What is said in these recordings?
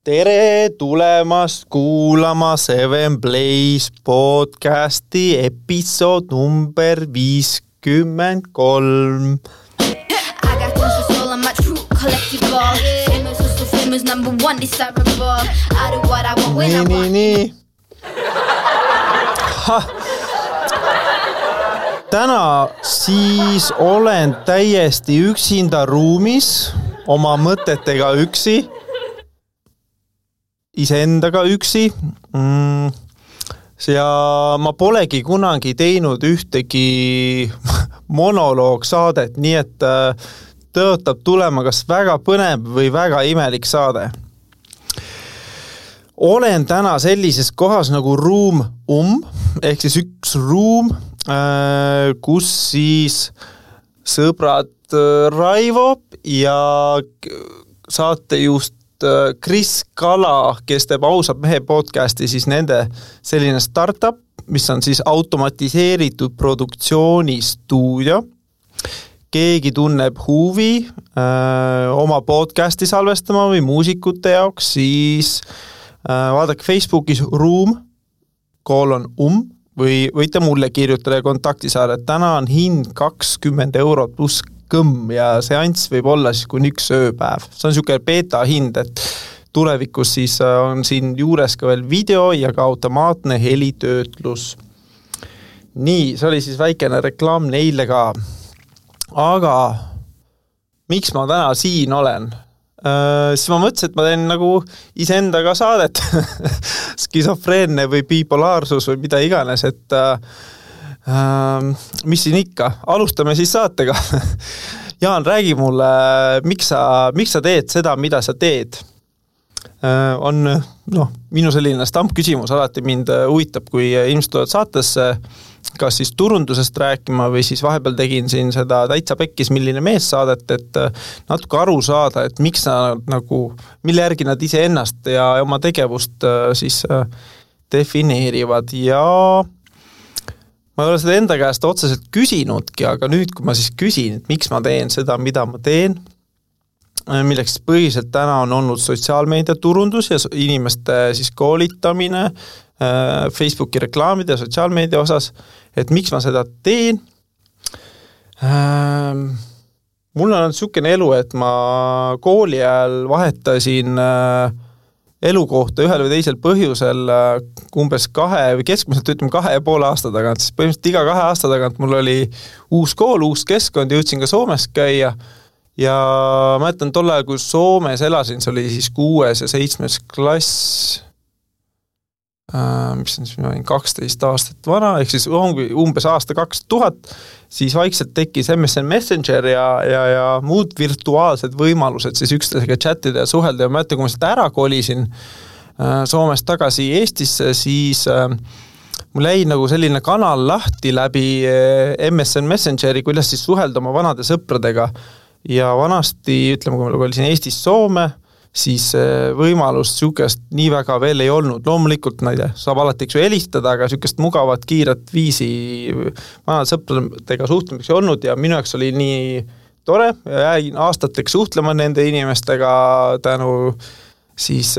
Tere tulemast kuulama Seven Blaze podcasti episood number 53. Nii. Täna siis olen täiesti üksinda ruumis oma mõtetega üksi. Iseendaga üksi ja ma polegi kunagi teinud ühtegi monoloogsaadet, nii et tõotab tulema kas väga põnev või väga imelik saade. Olen täna sellises kohas nagu ruum ehk siis üks ruum, kus siis sõbrad Raivo ja saatejuht Kris Kala, kes teeb Ausad mehe podcasti, siis nende selline startup, mis on siis automatiseeritud produktsioonistuudio. Keegi tunneb huvi oma podcasti salvestama või muusikute jaoks, siis vaadake Facebookis või võite mulle kirjutada ja kontakti saada. Täna on hind 20 € pluss kõmm ja seanss võib olla siis kuni 1 ööpäev. See on niisugune beta hind, et tulevikus siis on siin juures ka veel video ja ka automaatne helitöötlus. Nii, see oli siis väikene reklaam neile ka. Aga miks ma täna siin olen? Siis ma mõtlesin, et ma teen nagu iseendaga saadet. Skisofreenne või bipolaarsus või mida iganes, et mis siin ikka? Alustame siis saatega. Jaan, räägi mulle, miks sa teed seda, mida sa teed? On minu selline stampküsimus alati mind huvitab, kui inimesed tulevad saatesse, kas siis turundusest rääkima või siis vahepeal tegin siin seda täitsa pekkis milline mees saadet, et natuke aru saada, et miks nad mille järgi nad ise ennast ja oma tegevust siis defineerivad ja ma ei ole seda enda käest otseselt küsinudki, aga nüüd, kui ma siis küsin, et miks ma teen seda, mida ma teen, milleks põhiliselt täna on olnud sotsiaalmeedia turundus ja inimeste siis koolitamine Facebooki reklaamide ja sotsiaalmeedia osas, et miks ma seda teen. Mul on niisugune elu, et ma kooli ajal vahetasin elukohta ühel või teisel põhjusel umbes 2,5 aasta tagant, siis põhimõtteliselt iga 2 aasta tagant mul oli uus kool, uus keskkond, jõudsin ka Soomes käia ja mäletan tol ajal, kui Soomes elasin, see oli siis 6. ja 7. klass, mis on siis 12 aastat vana, ehk siis umbes aasta 2000, siis vaikselt tekkis MSN Messenger ja muud virtuaalsed võimalused siis üksteisega chattida ja suhelda ja ma mäletan, kui ma seda ära kolisin Soomest tagasi Eestisse, siis mul jäi nagu selline kanal lahti läbi MSN Messengeri, kuidas siis suhelda oma vanade sõpradega ja vanasti, ütleme, kui ma kolisin Eestis Soome, siis võimalust niisugust nii väga veel ei olnud. Loomulikult, saab alati helistada, aga niisugust mugavat, kiiret viisi vanade sõpradega suhtlemiseks ei olnud ja minu jaoks oli nii tore ja jäin aastateks suhtlema nende inimestega tänu siis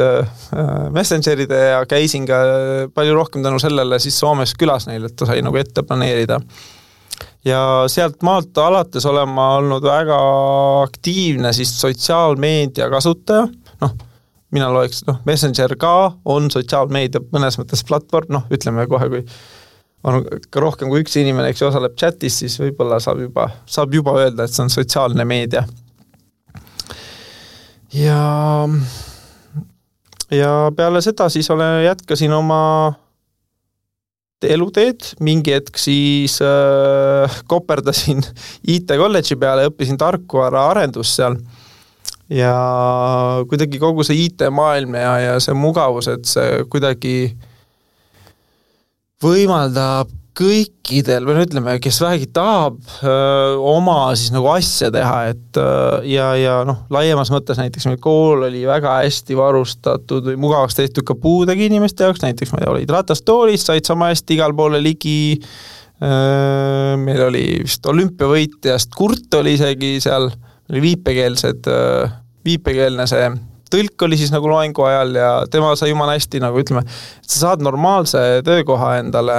messengeride ja käisin ka palju rohkem tänu sellele siis Soomes külas neil, et ta sai nagu ette planeerida. Ja sealt maalt alates olen ma olnud väga aktiivne siis sotsiaalmeedia kasutaja. Mina loeks, Messenger ka on sotsiaalmeedia mõnes mõttes platvorm, ütleme kohe, kui on rohkem kui üks inimene, eks osaleb chatis, siis võib-olla saab juba öelda, et see on sotsiaalne meedia. Ja peale seda siis jätkasin oma eluteed, mingi hetk siis koperdasin IT-kolledži peale, õppisin tarkvara arendus seal ja kuidagi kogu see IT-maailm ja see mugavus, et see kuidagi võimaldab kõikidel, või ütleme, kes vähegi tahab oma siis nagu asja teha, et ja laiemas mõttes näiteks meil kool oli väga hästi varustatud või mugavaks tehtud ka puudega inimeste jaoks, näiteks meil olid ratastoolis, said sama hästi igal poole ligi, meil oli vist olümpiavõitjast Kurt oli isegi seal, oli viipekeelne see tõlk oli siis nagu loengu ajal ja tema sai jumala hästi nagu ütleme, et sa saad normaalse töökoha endale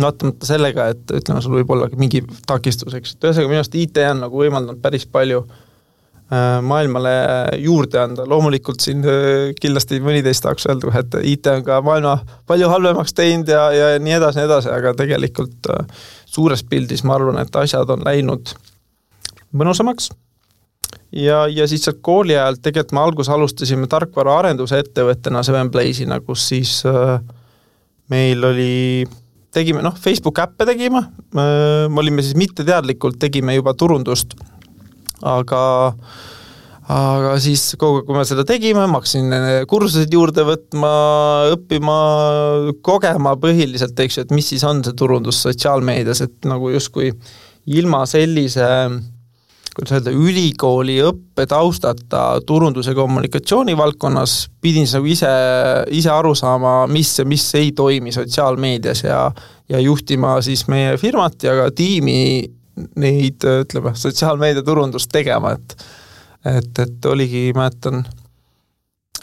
vaatamata sellega, et ütleme, sul võib olla mingi takistuseks. Ühesõnaga minu arust IT on nagu võimaldanud päris palju maailmale juurde anda. Loomulikult siin kindlasti mõniteist tahaks öelda, et IT on ka maailma palju halvemaks teinud ja nii edasi, aga tegelikult suures pildis ma arvan, et asjad on läinud mõnusamaks. Ja siis kooli ajal tegelikult me alustasime tarkvara arenduse ettevõttena 7Blaze'ina, kus siis meil oli, tegime, Facebook äppe tegime, me olime siis mitteteadlikult, tegime juba turundust, aga siis kogu, kui me seda tegime, ma hakkasin kursuseid juurde võtma, õppima, kogema põhiliselt, et mis siis on see turundus sotsiaalmeedias, et nagu justkui ilma sellise, kuidas öelda, ülikooli õppe taustata turundus- ja kommunikatsiooni valdkonnas pidin nagu ise aru saama, mis ei toimi sotsiaalmeedias ja juhtima siis meie firmat ja ka tiimi neid, ütleme, sotsiaalmeedia turundust tegema, et oligi, mäletan,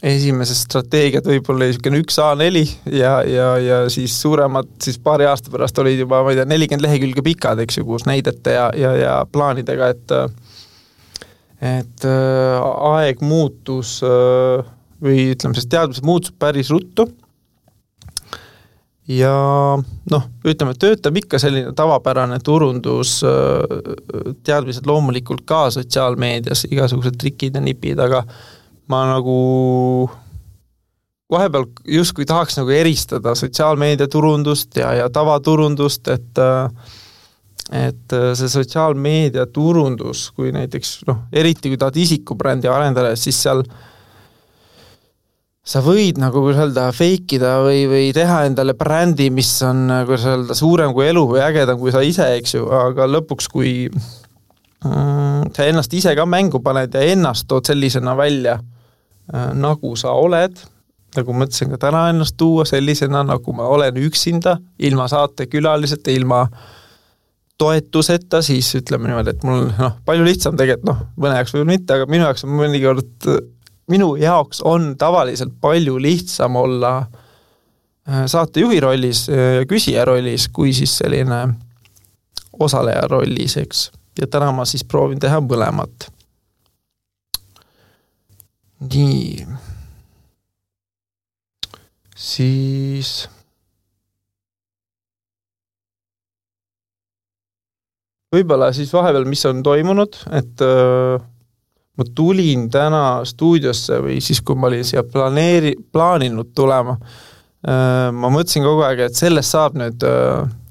esimesed strateegiad võib-olla oli 1A4 ja siis suuremad, siis paari aasta pärast olid juba, ma ei tea, 40 lehekülge pikad, eks ju, kus näidete ja plaanidega, et aeg muutus või ütleme, sest teadmised muutus päris ruttu ja ütleme, töötab ikka selline tavapärane turundus, teadmised loomulikult ka sotsiaalmeedias, igasugused trikid ja nipid, aga ma nagu vahepeal justkui tahaks nagu eristada sotsiaalmeedia turundust ja tavaturundust, et see sotsiaalmeedia turundus, kui näiteks, eriti kui tahad isikubrändi arendada, siis seal sa võid nagu öelda feikida või teha endale brändi, mis on öelda, suurem kui elu või ägedam kui sa ise, eks ju, aga lõpuks, kui sa ennast ise ka mängu paned ja ennast tood sellisena välja, nagu sa oled, nagu mõtlesin ka täna ennast tuua sellisena, nagu ma olen üksinda, ilma saatekülaliseta, ilma toetuseta, siis ütleme niimoodi, et mul palju lihtsam tegelikult, mõne jaoks või mitte, aga minu jaoks on mõnikord minu jaoks on tavaliselt palju lihtsam olla saatejuhi rollis ja küsija rollis, kui siis selline osaleja rollis, eks. Ja täna ma siis proovin teha mõlemat. Nii. Siis võib-olla siis vahepeal, mis on toimunud, et ma tulin täna stuudiosse või siis, kui ma olin siia plaaninud tulema, ma mõtlesin kogu aeg, et sellest saab nüüd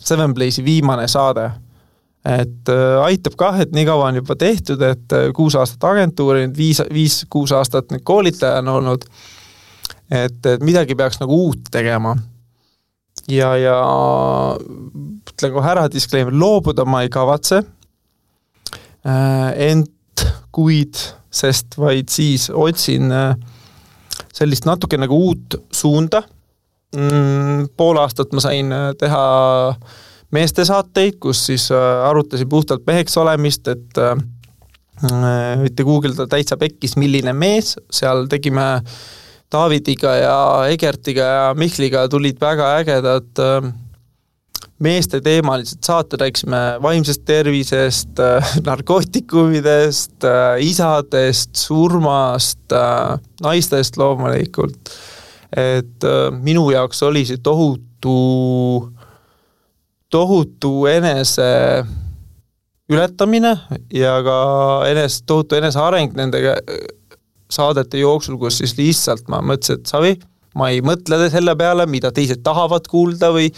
7Blaze'i viimane saade. Et aitab kah, et nii kaua on juba tehtud, et 6 aastat agentuuri, 5-6 aastat nüüd koolitaja on olnud, et midagi peaks nagu uut tegema. Ja ütlen kohe ära disclaimer, loobuda ma ei kavatse, kuid, sest vaid siis otsin sellist natuke nagu uut suunda. Pool aastat ma sain teha meestesaateid, kus siis arutasin puhtalt meheks olemist, et võite googleda täitsa pekkis, milline mees, seal tegime Davidiga ja Egertiga ja Mihkliga tulid väga ägedad meeste teemalised saated, rääksime vaimsest tervisest, narkootikumidest, isadest, surmast, naistest loomulikult. Et minu jaoks oli see tohutu enese ületamine ja ka tohutu enese areng nende saadete jooksul, kus siis lihtsalt ma mõtlesin, et Savi, ma ei mõtle selle peale, mida teised tahavad kuulda või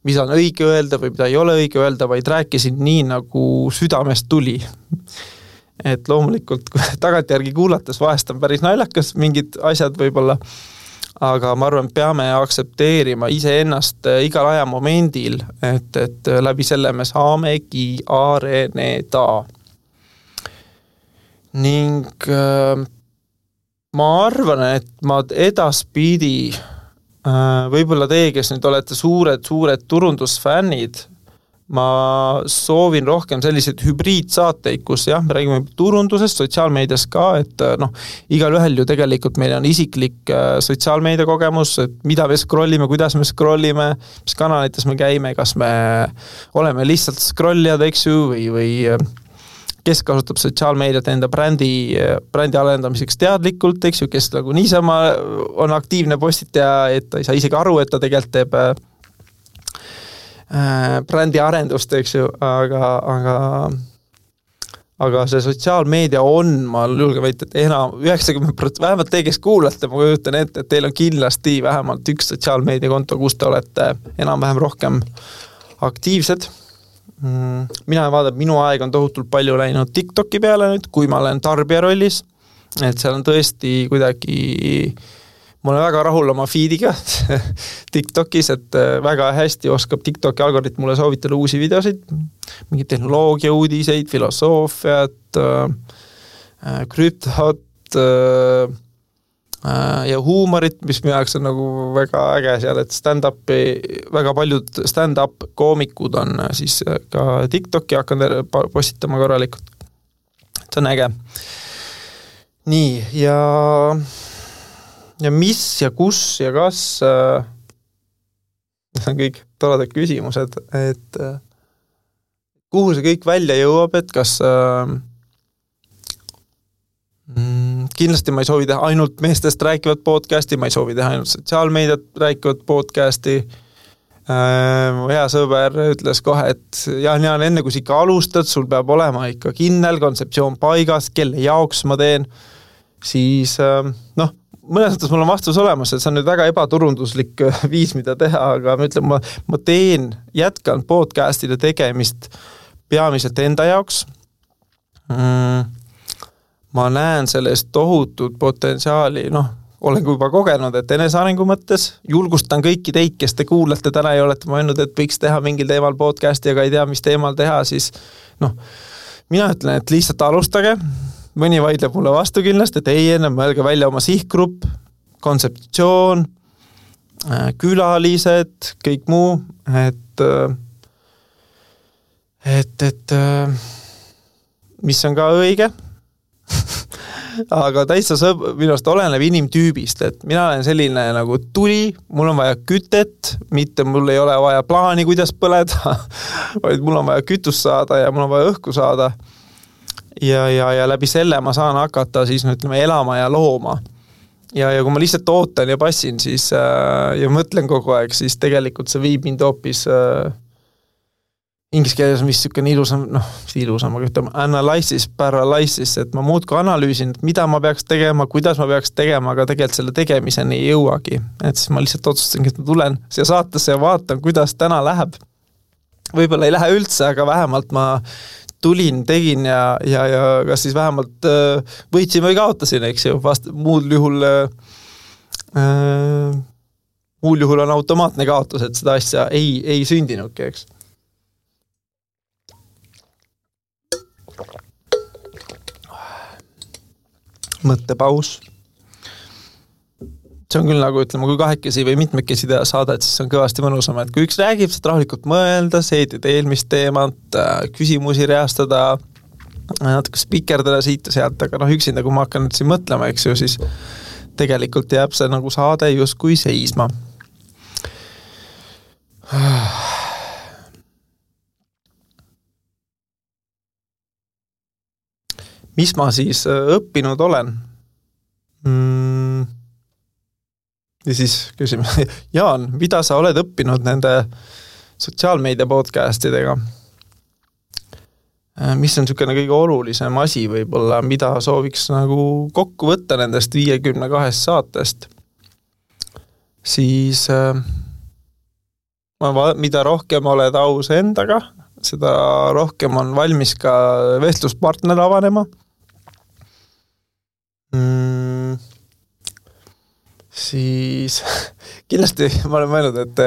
mida on õige öelda või mida ei ole õige öelda, vaid rääkisin nii, nagu südamest tuli. Et loomulikult tagantjärgi kuulates vahest on päris naljakas mingid asjad võib-olla, aga ma arvan, peame aktsepteerima iseennast igal ajamomendil, et läbi selle me saamegi areneda. Ning ma arvan, et ma edaspidi võib-olla teie, kes nüüd olete suured turundusfännid, ma soovin rohkem selliseid hübriidsaateid, kus jah, me räägime turundusest, sotsiaalmeedias ka, et igal ühel ju tegelikult meil on isiklik sotsiaalmeedia kogemus, et mida me scrollime, kuidas me scrollime, mis kanalites me käime, kas me oleme lihtsalt scrollijad, eks ju, või kes kasutab sotsiaalmeediat enda brändi arendamiseks teadlikult, eks ju, kes nagu niisama on aktiivne postitaja, et ta ei saa isegi aru, et ta tegelikult teeb brändi arendust, eks ju, aga see sotsiaalmeedia on, ma julgen väita, et enam 90%, vähemalt te, kes kuulate, ma kujutan ette, et teil on kindlasti vähemalt üks sotsiaalmeediakonto, kus te olete enam-vähem rohkem aktiivsed. Mina vaatan, minu aeg on tohutult palju läinud TikToki peale nüüd, kui ma olen tarbija rollis, et seal on tõesti kuidagi ma olen väga rahul oma feediga TikTokis, et väga hästi oskab TikToki algoritm mulle soovitada uusi videosid, mingid tehnoloogia uudiseid, filosoofiat, krüptot ja huumorit, mis minu jaoks on nagu väga äge seal, et väga paljud stand-up koomikud on siis ka TikToki hakanud postitama korralikult. See on äge. Nii, ja mis ja kus ja kas need on kõik toredad küsimused, et kuhu see kõik välja jõuab, et kas kindlasti ma ei soovi teha ainult meestest rääkivat podcasti, ma ei soovi teha ainult sotsiaalmeediat rääkivat podcasti. Hea sõber ütles kohe, et Jaan, enne kui sa ikka alustad, sul peab olema ikka kindel kontseptsioon paigas, kelle jaoks ma teen, siis mõnes mõttes mul on vastus olemas, et see on nüüd väga ebaturunduslik viis, mida teha, aga ma ütlen, ma jätkan podcastide tegemist peamiselt enda jaoks. Ma näen sellest tohutut potentsiaali, olen juba kogenud, et enesearengu mõttes julgustan kõiki teid, kes te kuulate täna ja olete mõelnud, et võiks teha mingil teemal podcasti, aga ei tea, mis teemal teha, siis mina ütlen, et lihtsalt alustage. Mõni vaidleb mulle vastu kindlasti, et ei enne mõelge välja oma sihtgrupp, kontseptsioon, külalised, kõik muu, et mis on ka õige, aga täitsa minust oleneb inimtüübist, et mina olen selline nagu tuli, mul on vaja kütet, mitte mul ei ole vaja plaani, kuidas põleda, vaid mul on vaja kütust saada ja mul on vaja õhku saada. Ja läbi selle ma saan hakata siis ütleme elama ja looma. Ja kui ma lihtsalt ootan ja passin siis, ja mõtlen kogu aeg, siis tegelikult see viib mind hoopis inglise keeles on vist niisugune ilusam, aga ütleme analysis, paralysis, et ma muudku analüüsin, et mida ma peaks tegema, kuidas ma peaks tegema, aga tegelikult selle tegemiseni ei jõuagi. Et siis ma lihtsalt otsustangi, et ma tulen siia saatesse ja vaatan, kuidas täna läheb. Võib-olla ei lähe üldse, aga vähemalt ma tulin, tegin ja kas siis vähemalt võitsin või kaotasin, eks ju, muul juhul on automaatne kaotus, et seda asja ei sündinudki, eks. Mõttepaus. See on küll nagu, ütleme, kui kahekesi või mitmekesi teha saada, et siis on kõvasti mõnusam, et kui üks räägib, saad rahulikult mõelda, seedid eelmist teemat, küsimusi reastada, natuke spikerdada siit ja sealt, aga üksinda, kui ma hakkan nüüd siin mõtlema, eks ju, siis tegelikult jääb see nagu saade justkui seisma. Mis ma siis õppinud olen? Ja siis küsime, Jaan, mida sa oled õppinud nende sotsiaalmeedia podcastidega? Mis on niisugune kõige olulisem asi võib-olla, mida sooviks nagu kokku võtta nendest 52 saatest? Siis mida rohkem oled aus endaga, seda rohkem on valmis ka vestluspartner avanema. Siis kindlasti ma olen mõelnud, et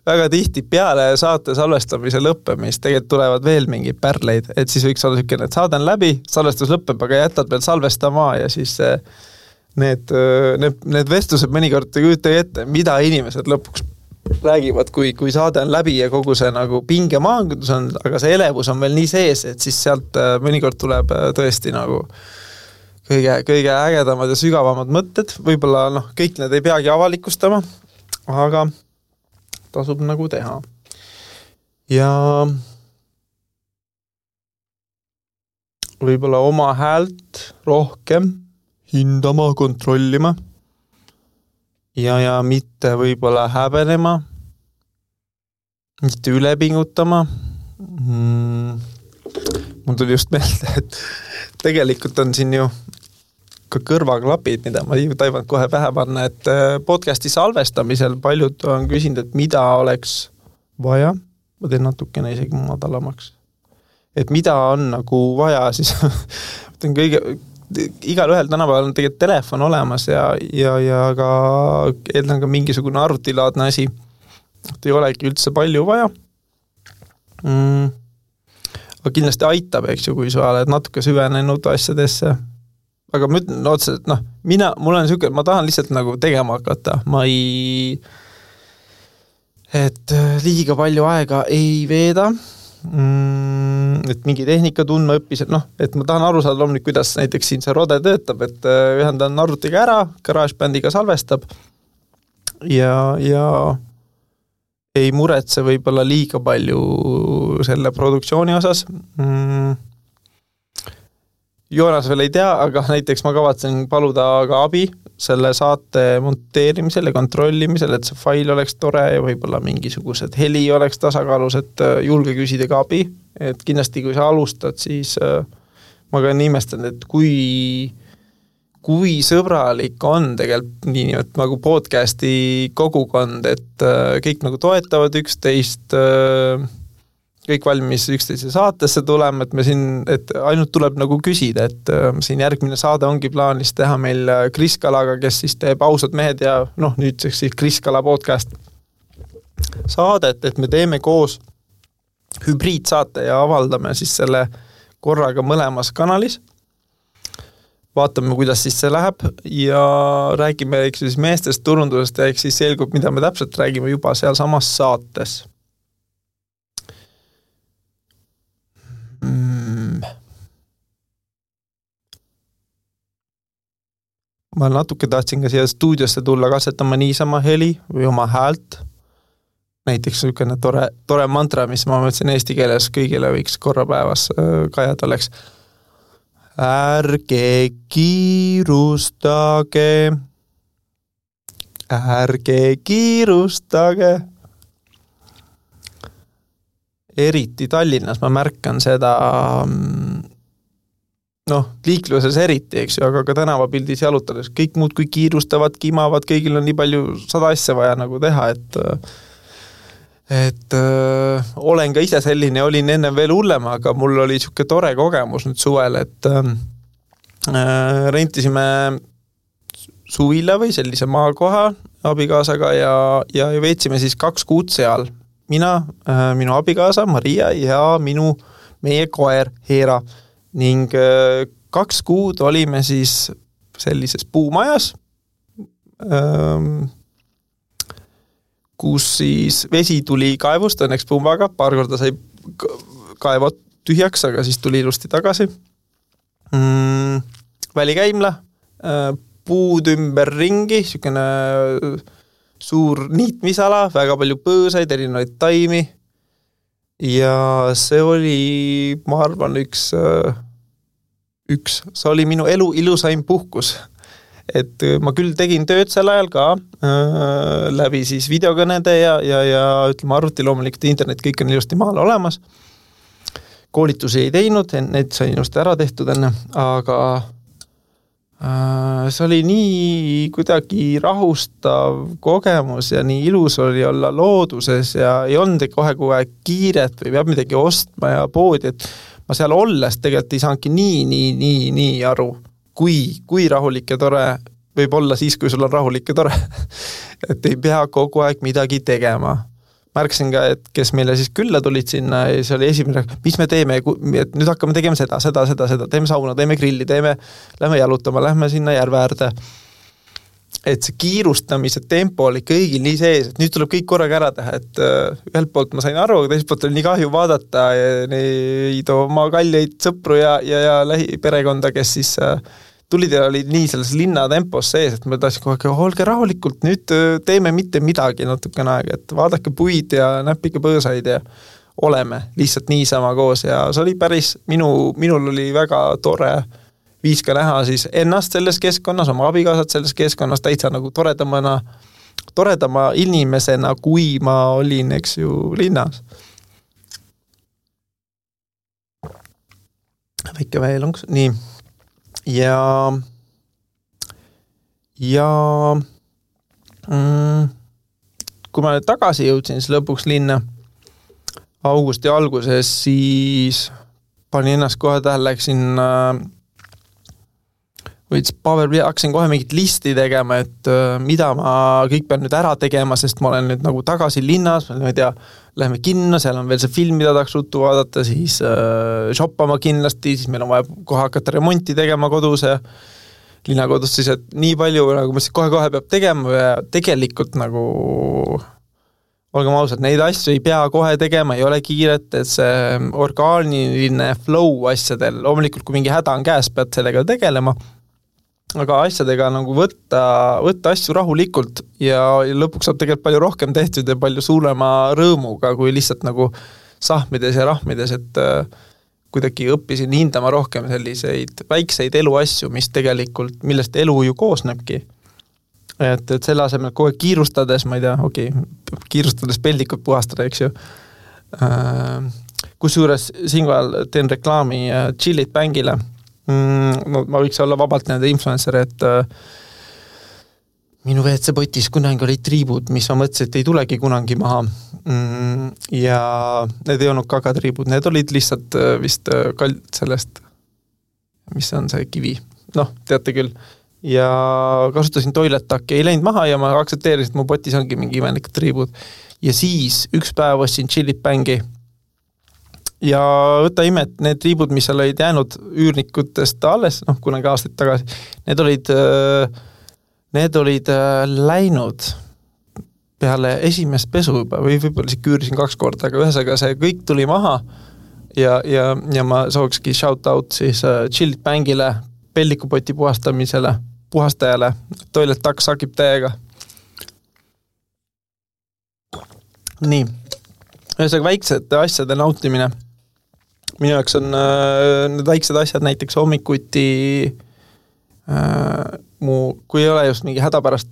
väga tihti peale saate salvestamise lõppemist tegelikult tulevad veel mingi pärleid, et siis võiks olla niisugune, et saade on läbi, salvestus lõppeb, aga jätad veel salvestama ja siis need vestlused mõnikord ei kujuta ette, mida inimesed lõpuks räägivad, kui saade on läbi ja kogu see nagu pingemaandus on, aga see elevus on veel nii sees, et siis sealt mõnikord tuleb tõesti nagu kõige ägedamad ja sügavamad mõtted, võib-olla kõik need ei peagi avalikustama, aga tasub nagu teha. Ja võib-olla oma häält rohkem hindama, kontrollima ja mitte võib-olla häbenema, mitte ülepingutama. Mul tuli just meelde, et tegelikult on siin ju ka kõrvaklapid, mida ma ei taibanud kohe pähe panna, et podcasti salvestamisel paljud on küsinud, et mida oleks vaja, ma teen natukene isegi madalamaks, et mida on nagu vaja, siis igal ühel tänapäeval on tegelikult telefon olemas ja ka eeldan ka mingisugune arvutilaadne asi, et ei olegi üldse palju vaja. Aga kindlasti aitab, eks ju, kui sa oled natuke süvenenud asjadesse. Aga ma ütlen otseselt, mul on niisugune, ma tahan lihtsalt nagu tegema hakata. Et liiga palju aega ei veeda, et mingi tehnika tundma õppis, et ma tahan aru saada loomulikult, kuidas näiteks siin see rode töötab, et ühendan arvutiga ära, GarageBandiga salvestab ja ei muretse võib-olla liiga palju selle produktsiooni osas. Joonas veel ei tea, aga näiteks ma kavatsen paluda ka abi selle saate monteerimisel ja kontrollimisel, et see fail oleks tore ja võib-olla mingisugused heli oleks tasakaalus, et julge küsida ka abi. Et kindlasti, kui sa alustad, siis ma ka imestan, et kui sõbralik on tegelikult nii nagu podcasti kogukond, et kõik nagu toetavad üksteist, kõik valmis üksteise saatesse tulema, et me siin, et ainult tuleb nagu küsida, et siin järgmine saade ongi plaanis teha meil Kris Kalaga, kes siis teeb Ausad mehed ja nüüdseks siis Kris Kala podcast saadet, et me teeme koos hübriidsaate ja avaldame siis selle korraga mõlemas kanalis. Vaatame, kuidas siis see läheb ja räägime siis meestest turundusest ja siis selgub, mida me täpselt räägime juba seal samas saates. Ma natuke tahtsin ka siia stuudiosse tulla katsetama niisama heli või oma häält. Näiteks niisugune tore mantra, mis ma mõtlesin eesti keeles kõigile võiks korra päevas kajada oleks. Ärge kiirustage. Eriti Tallinnas ma märkan seda liikluses eriti, eks ju, aga ka tänavapildis jalutades kõik muud kui kiirustavad, kimavad, kõigil on nii palju 100 asja vaja nagu teha, et olen ka ise selline, olin enne veel hullem, aga mul oli niisugune tore kogemus nüüd suvel, et rentisime suvila või sellise maakoha abikaasaga ja veetsime siis 2 kuud seal. Mina, minu abikaasa Maria ja meie koer Heera. Ning 2 kuud olime siis sellises puumajas, kus siis vesi tuli kaevust, õnneks pumbaga, paar korda sai kaevot tühjaks, aga siis tuli ilusti tagasi. Välikäimla, puud ümber ringi, niisugune suur niitmisala, väga palju põõsaid, erinevaid taimi. Ja see oli, ma arvan, see oli minu elu ilusaim puhkus. Et ma küll tegin tööd sel ajal ka läbi siis videokõnede ja ütleme arvuti loomulikult internet, kõik on ilusti maal olemas. Koolitusi ei teinud, need sai ilusti ära tehtud enne, aga see oli nii kuidagi rahustav kogemus ja nii ilus oli olla looduses ja ei olnud kohe kiiret või peab midagi ostma ja poodi, et ma seal olles tegelikult ei saanudki nii aru, kui rahulik ja tore võib olla siis, kui sul on rahulik ja tore. Et ei pea kogu aeg midagi tegema. Märksin ka, et kes meile siis külla tulid sinna ja see oli esimene, mis me teeme, et nüüd hakkame tegema seda, teeme sauna, teeme grilli, lähme jalutama, lähme sinna järve äärde. et see kiirustamise tempo oli kõigil nii sees, et nüüd tuleb kõik korraga ära teha, et ühelt poolt ma sain aru, aga teiselt poolt oli nii kahju vaadata neid oma kalleid sõpru ja lähiperekonda, kes siis tulid ja olid nii selles linna tempos sees, et ma tahtsin kogu aeg, olge rahulikult, nüüd teeme mitte midagi natukene aega, et vaadake puid ja näppige põõsaid ja oleme lihtsalt niisama koos ja see oli päris, minul oli väga tore viis ka näha siis ennast selles keskkonnas, oma abikaasat selles keskkonnas täitsa nagu toredama inimesena, kui ma olin, eks ju, linnas. Väike veelungs, nii. Ja kui ma nüüd tagasi jõudsin siis lõpuks linna augusti alguses, siis panin ennast kohe tähele, läksin hakkasin kohe mingit listi tegema, et mida ma kõik pean nüüd ära tegema, sest ma olen nüüd nagu tagasi linnas, ma ei tea, läheme kinno, seal on veel see film, mida tahaks ruttu vaadata, siis shoppama kindlasti, siis meil on vaja kohe hakata remonti tegema kodus ja linnakodus siis, et nii palju nagu ma siis kohe peab tegema ja tegelikult nagu olgem ausad, neid asju ei pea kohe tegema, ei ole kiiret, et see orgaaniline flow asjadel, loomulikult kui mingi häda on käes, pead sellega tegelema, aga asjadega nagu võtta asju rahulikult ja lõpuks saab tegelikult palju rohkem tehtud ja palju suurema rõõmuga, kui lihtsalt nagu sahmides ja rahmides, et kuidagi õppisin hindama rohkem selliseid väikseid eluasju, mis tegelikult, millest elu ju koosnebki. Et selle asemel kohe kiirustades, ma ei tea, kiirustades peldikut puhastada, eks ju. Kusjuures siinkohal teen reklaami Chillit Bangile. No, ma võiks olla vabalt nende influencer, et minu WC-potis kunagi olid triibud, mis ma mõtlesin, et ei tulegi kunagi maha. Ja need ei olnud kagatriibud, need olid lihtsalt vist sellest, mis on see kivi. Noh, teate küll. Ja kasutasin toilettakki, ei läinud maha ja ma aktsepteerisin, et mu potis ongi mingi imelikud triibud. Ja siis üks päev ostsin Chillit Bangi ja võta ime, et need triibud, mis seal olid jäänud üürnikutest alles, kunagi aastaid tagasi, need olid läinud peale esimest pesu juba, või võib-olla siis küürisin 2 korda, aga ühesõnaga see kõik tuli maha ja ma sookski shout out siis Chillit Bangile, pellikupoti puhastajale, toilet taks sakib täiega. Nii, ühesõnaga väiksed asjade nautimine. Minu jaoks on need väiksed asjad näiteks hommikuti, kui ei ole just mingi hädapärast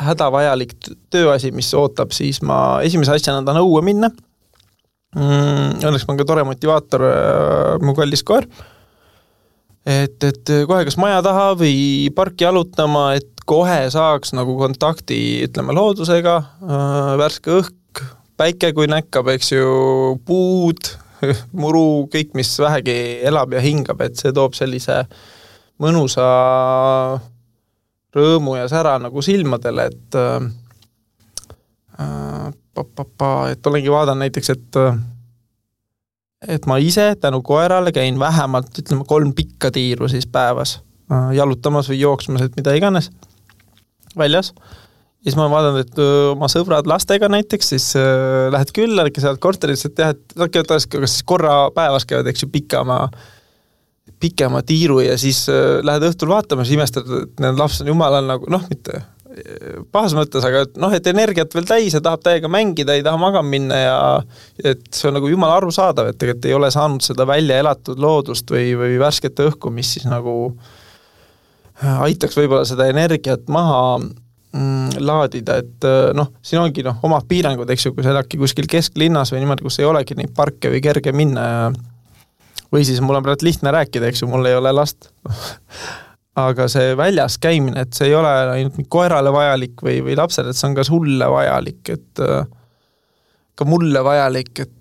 hädavajalik tööasi, mis ootab, siis ma esimese asjana tahan õue minna. Õnneks ma on ka tore motivaator, mu kallis koer. Et kohe kas maja taha või parki jalutama, et kohe saaks nagu kontakti, ütleme, loodusega, värske õhk, päike kui näkkab, eks ju, puud, muru, kõik, mis vähegi elab ja hingab, et see toob sellise mõnusa rõõmu ja sära nagu silmadele, et olengi vaadan näiteks, et ma ise tänu koerale käin vähemalt, ütleme, 3 pikka tiiru siis päevas jalutamas või jooksmas, et mida iganes väljas. Ja siis ma vaatan, et oma sõbrad lastega näiteks, siis lähed külla, sealt korterisse, et teha, et kas siis korra päevas käivad, eks ju, pikema tiiru ja siis lähed õhtul vaatama, siis imestad, et need laps on jumalal nagu, mitte pahas mõttes, aga et energiat veel täis ja tahab täiega mängida, ei taha magama minna ja et see on nagu jumala arusaadav, et tegelikult ei ole saanud seda välja elatud loodust või värskete õhku, mis siis nagu aitaks võib-olla seda energiat maha laadida, et siin ongi omad piirangud, eks ju, kui sa eladki kuskil kesklinnas või niimoodi, kus ei olegi neid parke või kerge minna või siis mul on praegu lihtne rääkida, eks ju, mul ei ole last aga see väljas käimine, et see ei ole ainult koerale vajalik või lapsele, et see on ka sulle vajalik, et ka mulle vajalik, et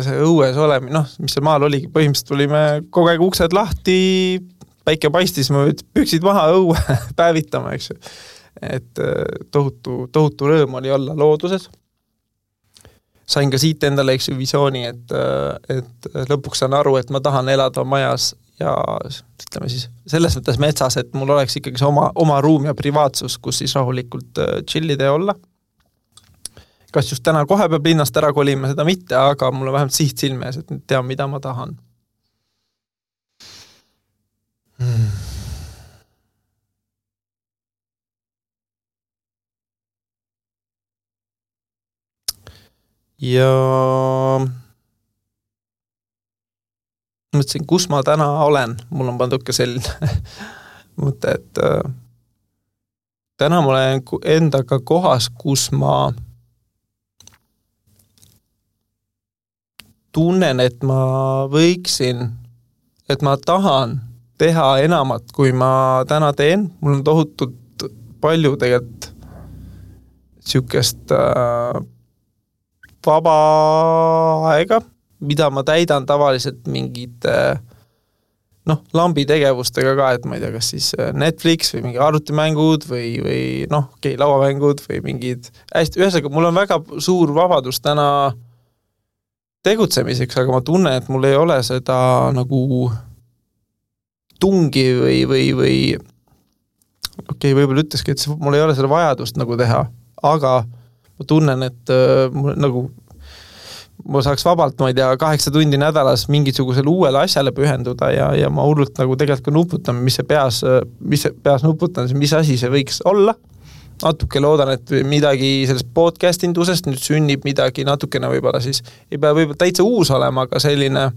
see õues olemi, mis seal maal oligi, põhimõtteliselt tulime kogu aeg uksed lahti, päike paistis, ma püksid maha õue päevitama, eks ju. Et tohutu rõõm oli olla looduses. Sain ka siit endale, eks ju, visiooni, et lõpuks saan aru, et ma tahan elada majas ja ütleme siis selles mõttes metsas, et mul oleks ikkagi see oma ruum ja privaatsus, kus siis rahulikult chillida ja olla. Kas just täna kohe peab linnast ära kolima, seda mitte, aga mul on vähemalt siht silme ees, et tean, mida ma tahan. Ja mõtlesin, kus ma täna olen. Mul on pannud ka selline mõte, et täna ma olen endaga kohas, kus ma tunnen, et ma võiksin, et ma tahan teha enamat, kui ma täna teen. Mul on tohutult palju tegelikult siukest vaba aega, mida ma täidan tavaliselt mingid lambi tegevustega ka, et ma ei tea, kas siis Netflix või mingi arvutimängud või lauamängud või mingid hästi, ühesõnaga, mul on väga suur vabadus täna tegutsemiseks, aga ma tunnen, et mul ei ole seda nagu tungi või võib-olla ütleski, et mul ei ole seda vajadust nagu teha, aga ma tunnen, et ma saaks vabalt, ma ei tea, 8 tundi nädalas mingisugusele uuele asjale pühenduda ja ma hullult nagu tegelikult ka nuputan, mis see peas nuputan, mis asi see võiks olla. Natuke loodan, et midagi sellest podcastingusest nüüd sünnib midagi natukene võib-olla siis, ei pea võib-olla täitsa uus olema, aga selline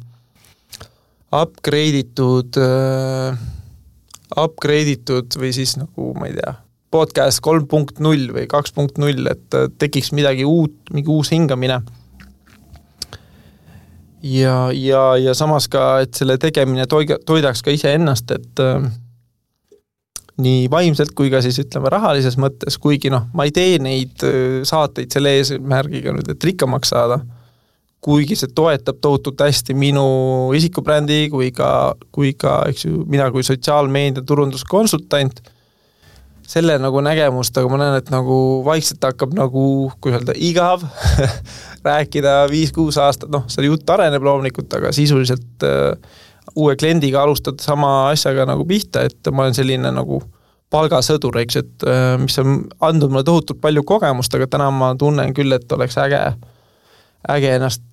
upgrade'itud või siis nagu, ma ei tea, podcast 3.0 või 2.0, et tekiks midagi uut, mingi uus hingamine. Ja samas ka, et selle tegemine toidaks ka ise ennast, et nii vaimselt kui ka siis ütleme rahalises mõttes, kuigi ma ei tee neid saateid selle eesmärgiga nüüd, et rikkamaks saada, kuigi see toetab tohutult hästi minu isikubrändi kui ka eks ju, mina kui sotsiaalmeedia turunduskonsultant, selle nagu nägemust, aga ma näen, et nagu vaikselt hakkab nagu, kui öelda, igav rääkida 5-6 aastat, see jutt areneb loomulikult, aga sisuliselt uue kliendiga alustada sama asjaga nagu pihta, et ma olen selline nagu palgasõdur, eks, et mis on andnud mulle tohutult palju kogemust, aga täna ma tunnen küll, et oleks äge ennast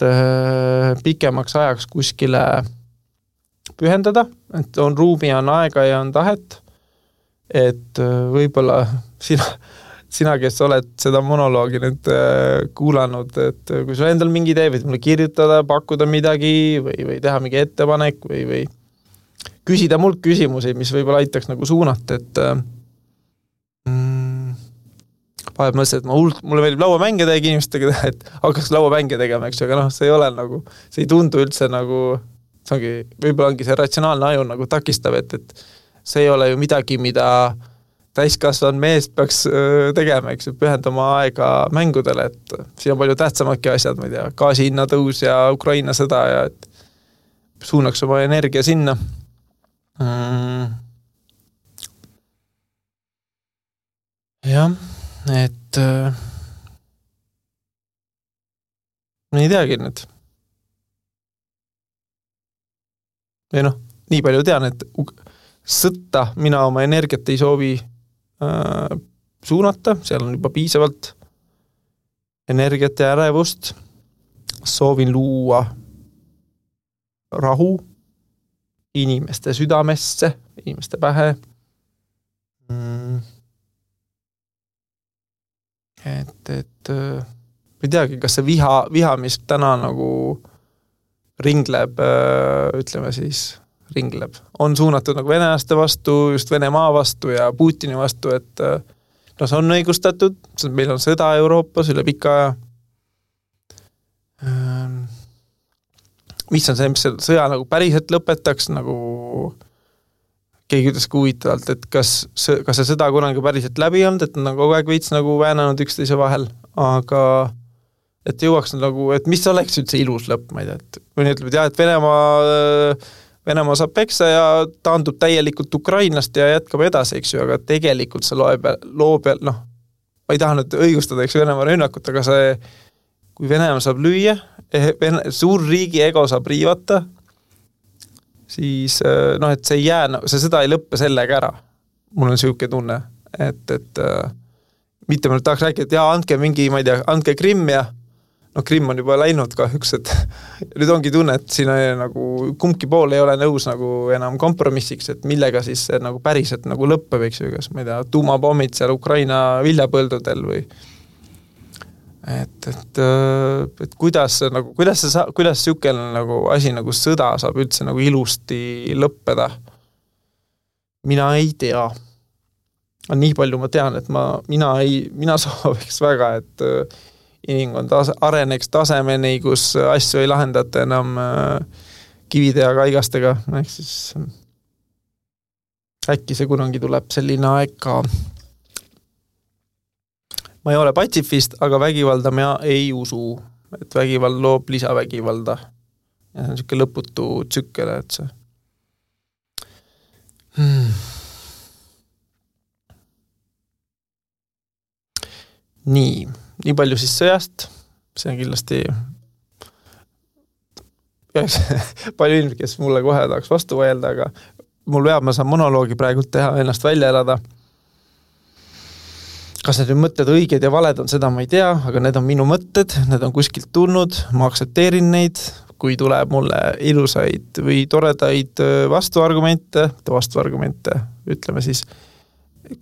pikemaks ajaks kuskile pühendada, et on ruumi, on aega ja on tahet, et võib-olla sina, kes oled seda monoloogi nüüd kuulanud, et kui sul endal mingi idee, võid mulle kirjutada, pakkuda midagi või teha mingi ettepanek või küsida mult küsimusi, mis võib-olla aitaks nagu suunata, et vahel mõtlesin, et mulle meeldib lauamänge teha inimestega, et hakkaks lauamänge tegema, eks, aga see ei ole nagu, see ei tundu üldse nagu, võib-olla ongi see ratsionaalne aju nagu takistav, et see ei ole ju midagi, mida täiskasvanud mees peaks tegema, eks, pühendama aega mängudele, et siin on palju tähtsamadki asjad, ma ei tea, gaasihinna tõus ja Ukraina sõda ja et suunaks oma energia sinna. Jah, et ma ei teagi nüüd. Või nii palju tean, et sõtta mina oma energiat ei soovi suunata, seal on juba piisavalt energiat ja ärevust. Soovin luua rahu inimeste südamesse, inimeste pähe. Et ei teagi, kas see viha, mis täna nagu ringleb, ütleme siis, on suunatud nagu venelaste vastu, just Venemaa vastu ja Putini vastu, et see on õigustatud, meil on sõda Euroopas üle pika aja. Mis on see, mis sõja nagu päriselt lõpetaks, nagu keegi ütles huvitavalt, et kas see sõda kunagi päriselt läbi olnud, et nad on kogu aeg veits nagu väänanud üksteise vahel, aga et jõuaks nagu, et mis oleks üldse ilus lõpp, ma ei tea, et mõni ütleb, et jah, et Venemaa saab peksa ja taandub täielikult Ukrainast ja jätkab edasi, eks ju, aga tegelikult see loob, ma ei taha nüüd õigustada, eks Venemaa rünnakut, aga see, kui Venemaa saab lüüa, suur riigi ego saab riivata, siis noh, et see ei jää, seda ei lõppe sellega ära. Mul on siuke tunne, et mitte ma tahaks rääkida, et andke mingi, ma ei tea, andke Krimm ja Krimm on juba läinud kahjuks, et nüüd ongi tunne, et siin nagu kumbki pool ei ole nõus nagu enam kompromissiks, et millega siis see nagu päriselt nagu lõppeb, eks ju, kas ma ei tea, tuumapommid seal Ukraina viljapõldudel või et kuidas siukene nagu asi nagu sõda saab üldse nagu ilusti lõppeda. Mina ei tea. Nii palju ma tean, et mina sooviks väga, et inimkond areneks tasemeni, kus asju ei lahendata enam kivide ja kaigastega. Ehk siis äkki see kunagi tuleb selline aeg ka. Ma ei ole patsifist, aga vägivalda ma ei usu, et vägivald loob lisavägivalda. Ja see on siuke lõputu tsükkel, et see. Nii palju siis sõjast, see on kindlasti palju inimesi, kes mulle kohe tahaks vastu vajelda, aga mul veab, ma saan monoloogi praegult teha, ennast välja elada. Kas need mõtted õiged ja valed on, seda ma ei tea, aga need on minu mõtted, need on kuskilt tulnud, ma aksepteerin neid, kui tuleb mulle ilusaid või toredaid vastuargumente, ütleme siis,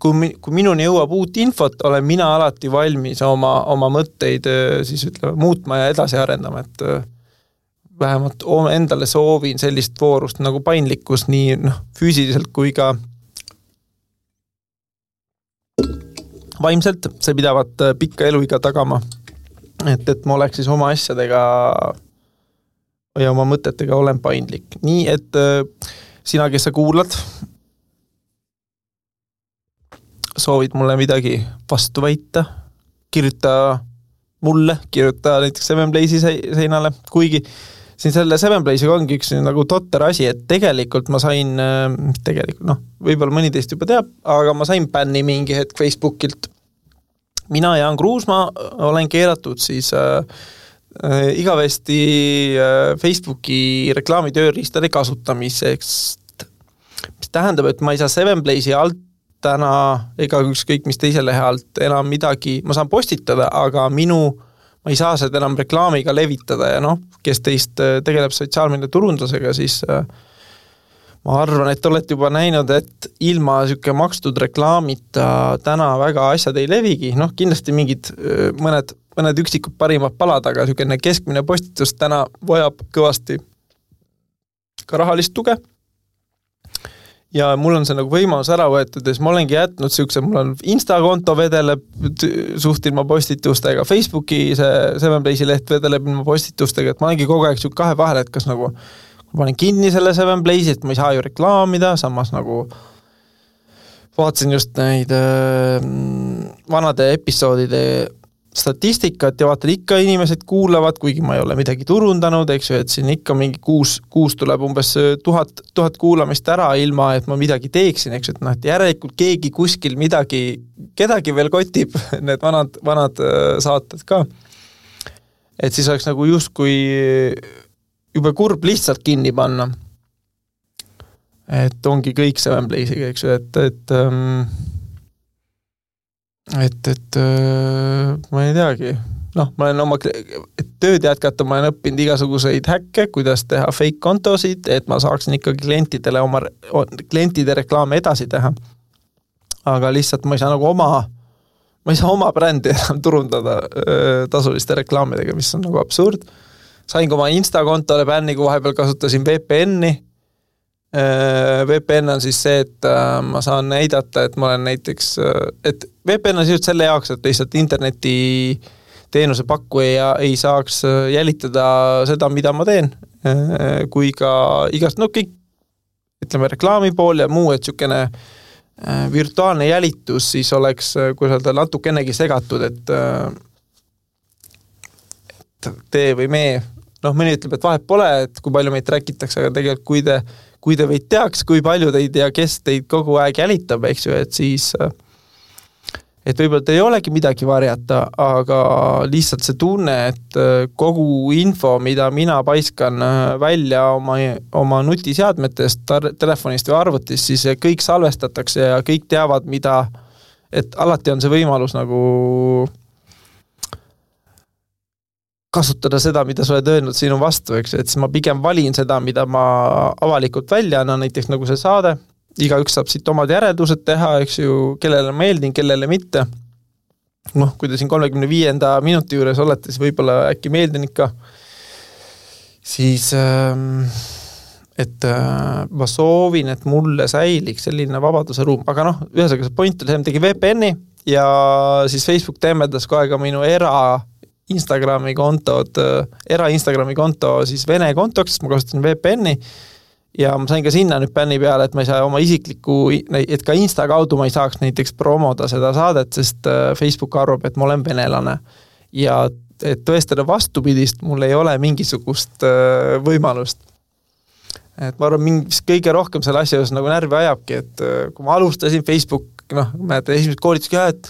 kui minuni jõuab uut infot, olen mina alati valmis oma mõtteid siis ütleme muutma ja edasi arendama, et vähemalt endale soovin sellist voorust nagu paindlikkus nii füüsiliselt kui ka vaimselt, see pidavat pikka eluiga tagama, et ma oleks siis oma asjadega ja oma mõtetega olen paindlik. Nii, et sina, kes sa kuulad, soovid mulle midagi vastu väita, kirjuta mulle, kirjuta näiteks Sevenplace'i seinale, kuigi siin selle Sevenplace'iga ongi üks nagu totter asi, et tegelikult ma sain, võib-olla mõni teist juba teab, aga ma sain bänni mingi hetk Facebookilt. Mina Jaan Kruusmaa olen keeratud siis igavesti Facebooki reklaamitööriistade kasutamiseks, mis tähendab, et ma ei saa Sevenplace'i alt täna ega ükskõik mis teise lehe alt enam midagi, ma saan postitada, aga ma ei saa seda enam reklaamiga levitada ja kes teist tegeleb sotsiaalmeedia turundusega, siis ma arvan, et olete juba näinud, et ilma siuke makstud reklaamita täna väga asjad ei levigi, kindlasti mingid mõned üksikud parimad palad, aga siukene keskmine postitus täna vajab kõvasti ka rahalist tuge. Ja mul on see nagu võimalus ära võetud, ja ma olengi jätnud siukse, mul on Insta-konto vedeleb suht ilma postitustega, Facebooki see Sevenplace'i leht vedeleb ilma postitustega, et ma olengi kogu aeg siuk kahe vahel, et kas nagu ma panen kinni selle Sevenplace'i, et ma ei saa ju reklaamida, samas nagu vaatasin just neid vanade episoodide statistikat ja vaatan ikka inimesed kuulavad, kuigi ma ei ole midagi turundanud, eks ju, et siin ikka mingi kuus tuleb umbes 1000 kuulamist ära ilma, et ma midagi teeksin, eks ju, et järelikult keegi kuskil kedagi veel kotib, need vanad saated ka. Et siis oleks nagu justkui juba kurb lihtsalt kinni panna. Et ongi kõik Sevenplace'iga, eks ju, et ma ei teagi, ma olen oma tööd jätkata, ma olen õppinud igasuguseid häkke, kuidas teha fake kontosid, et ma saaksin ikkagi klientide reklaame edasi teha. Aga lihtsalt ma ei saa nagu oma brändi enam turundada tasuliste reklaamidega, mis on nagu absurd. Sain ka oma Insta-kontole bänni, kui vahepeal kasutasin VPN-i. VPN on siis see, et ma saan näidata, et ma olen näiteks, et VPN on just selle jaoks, et lihtsalt interneti teenuse pakkuja ei saaks jälitada seda, mida ma teen, kui ka igast, kõik, ütleme, reklaami pool ja muu, et siukene virtuaalne jälitus siis oleks, kui öelda, natukenegi segatud, et tee või me, mõni ütleb, et vahet pole, et kui palju meid rääkitakse, aga tegelikult kui te võid teaks, kui palju teid ja kes teid kogu aeg jälitab, eks ju, et siis et võib-olla teil ei olegi midagi varjata, aga lihtsalt see tunne, et kogu info, mida mina paiskan välja oma nutiseadmetest, telefonist või arvutist, siis kõik salvestatakse ja kõik teavad, mida, et alati on see võimalus nagu kasutada seda, mida sa oled öelnud sinu vastu, eks, et siis ma pigem valin seda, mida ma avalikult välja annan, näiteks nagu see saade, igaüks saab siit omad järeldused teha, eks ju, kellele meeldin, kellele mitte. Noh, kui te siin 35. minuti juures olete, siis võib-olla äkki meeldin ikka, siis et ma soovin, et mulle säiliks selline vabaduse ruum, aga noh, ühesõnaga see point oli, tegi VPN-i ja siis Facebook temmeldas kohe ka minu Instagrami konto siis Vene kontoks, sest ma kasutasin VPN-i ja ma sain ka sinna nüüd bänni peale, et ma ei saa oma isiklikku, et ka Insta kaudu ma ei saaks näiteks promoda seda saadet, sest Facebook arvab, et ma olen venelane. Ja et tõestada vastupidist, mul ei ole mingisugust võimalust. Et ma arvan, mis kõige rohkem selle asja nagu närvi ajabki, et kui ma alustasin Facebook, mäletan esimesed koolitused ka, et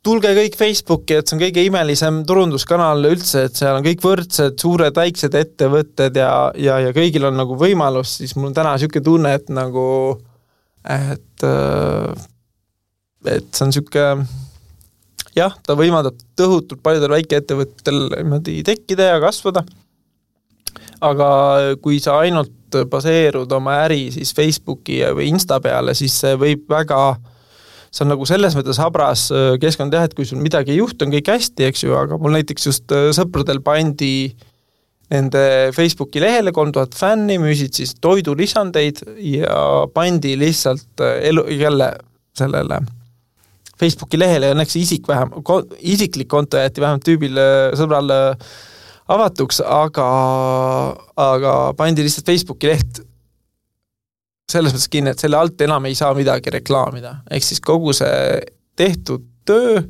tulge kõik Facebooki, et see on kõige imelisem turunduskanal üldse, et seal on kõik võrdsed, suured, väiksed ettevõtted ja kõigil on nagu võimalus, siis mul on täna selline tunne, et nagu, et see on selline, jah, ta võimaldab tõhutult paljudel väikeettevõttel tekkida ja kasvada, aga kui sa ainult baseerud oma äri siis Facebooki või Insta peale, siis see võib väga see on nagu selles mõttes habras keskkond teha, et kui sul midagi ei juhtu, on kõik hästi, eks ju, aga mul näiteks just sõpradel pandi nende Facebooki lehele 3000 fänni, müüsid siis toidulisandeid ja pandi lihtsalt jälle sellele Facebooki lehele ja õnneks isiklik konto jäeti vähemalt tüübil sõbral avatuks, aga pandi lihtsalt Facebooki leht selles mõttes kinni, et selle alt enam ei saa midagi reklaamida. Ehk siis kogu see tehtud töö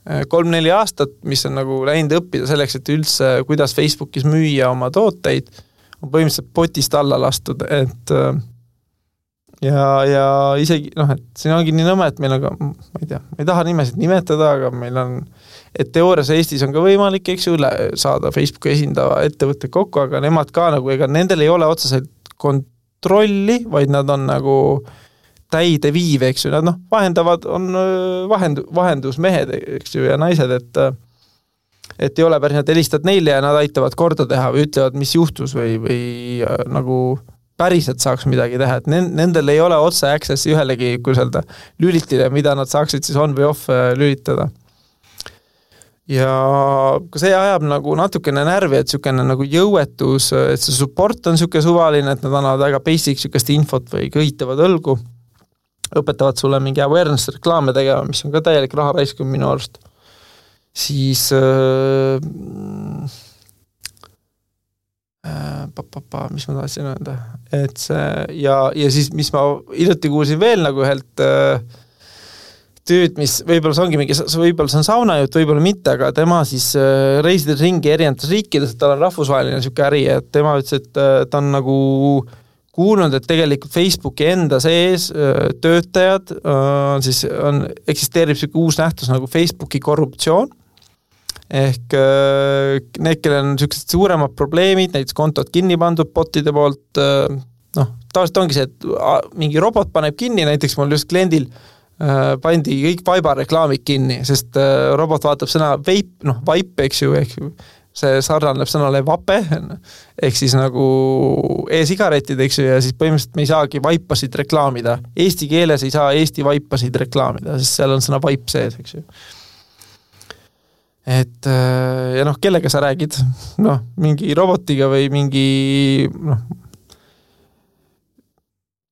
3-4 aastat, mis on nagu läinud õppida selleks, et üldse kuidas Facebookis müüa oma tooteid, on põhimõtteliselt potist alla lastud, et ja isegi, et siin ongi nii nõme, et meil on ka, ma ei tea, ma ei taha nimesid nimetada, aga meil on, et teoorias Eestis on ka võimalik, eks ju, saada Facebooki esindava ettevõtte kokku, aga nemad ka nagu, ega nendel ei ole otseselt kontrolli, vaid nad on nagu täide viiv, eks ju, nad vahendavad, on vahendusmehed, eks ju, ja naised, et ei ole päris, nad helistavad neile ja nad aitavad korda teha või ütlevad, mis juhtus või nagu päriselt saaks midagi teha, et nendel ei ole otse accessi ühelegi lülitile, mida nad saaksid siis on või off lülitada. Ja see ajab nagu natukene närvi, et niisugune nagu jõuetus, et see support on niisugune suvaline, et nad annavad väga basic niisugust infot või kõhitavad õlgu, õpetavad sulle mingi awareness reklaame tegema, mis on ka täielik raha raiskum minu arust. Siis mis ma tahtsin öelda, et see ja siis mis ma hiljuti kuulsin veel nagu ühelt tööd, mis võib-olla see ongi mingi, võib-olla see on saunajutt, võib-olla mitte, aga tema siis reisides ringi erinevates riikides, et tal on rahvusvaheline niisugune äri, et tema ütles, et ta on nagu kuulnud, et tegelikult Facebooki enda sees töötajad eksisteerib niisugune uus nähtus nagu Facebooki korruptsioon, ehk need, kellel on niisugused suuremad probleemid, näiteks kontod kinni pandud botide poolt, tavaliselt ongi see, et mingi robot paneb kinni, näiteks mul just kliendil pandi kõik vaibareklaamid kinni, sest robot vaatab sõna vaip, eks ju, see sarnaneb sõnale vape, ehk siis nagu e-sigaretid, eks ju, ja siis põhimõtteliselt me ei saagi vaipasid reklaamida. Eesti keeles ei saa Eesti vaipasid reklaamida, sest seal on sõna vaip sees, eks ju. Et ja kellega sa räägid? Mingi robotiga või mingi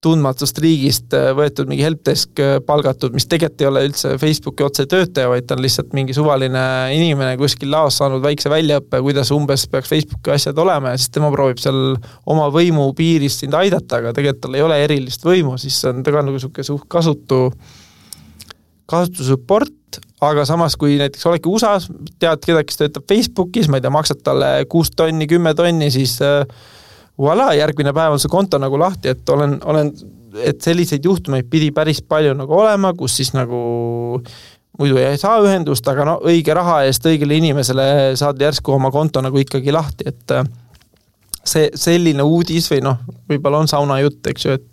tundmatust riigist võetud mingi helpdesk palgatud, mis tegelikult ei ole üldse Facebooki otse töötaja, vaid ta on lihtsalt mingi suvaline inimene kuskil laos saanud väikse väljaõppe, kuidas umbes peaks Facebooki asjad olema ja siis tema proovib seal oma võimu piirist sind aidata, aga tegelikult tal ei ole erilist võimu, siis on ta ka nagu kasutusupport, aga samas kui näiteks oledki USA-s, tead kedagi, kes töötab Facebookis, ma ei tea, maksad talle 6 tonni, 10 tonni, siis voilà, järgmine päev on see konto nagu lahti, et et selliseid juhtumeid pidi päris palju nagu olema, kus siis nagu muidu ei saa ühendust, aga no õige raha eest õigele inimesele saad järsku oma konto nagu ikkagi lahti, et see selline uudis või noh, võib-olla on sauna jutt, eks ju, et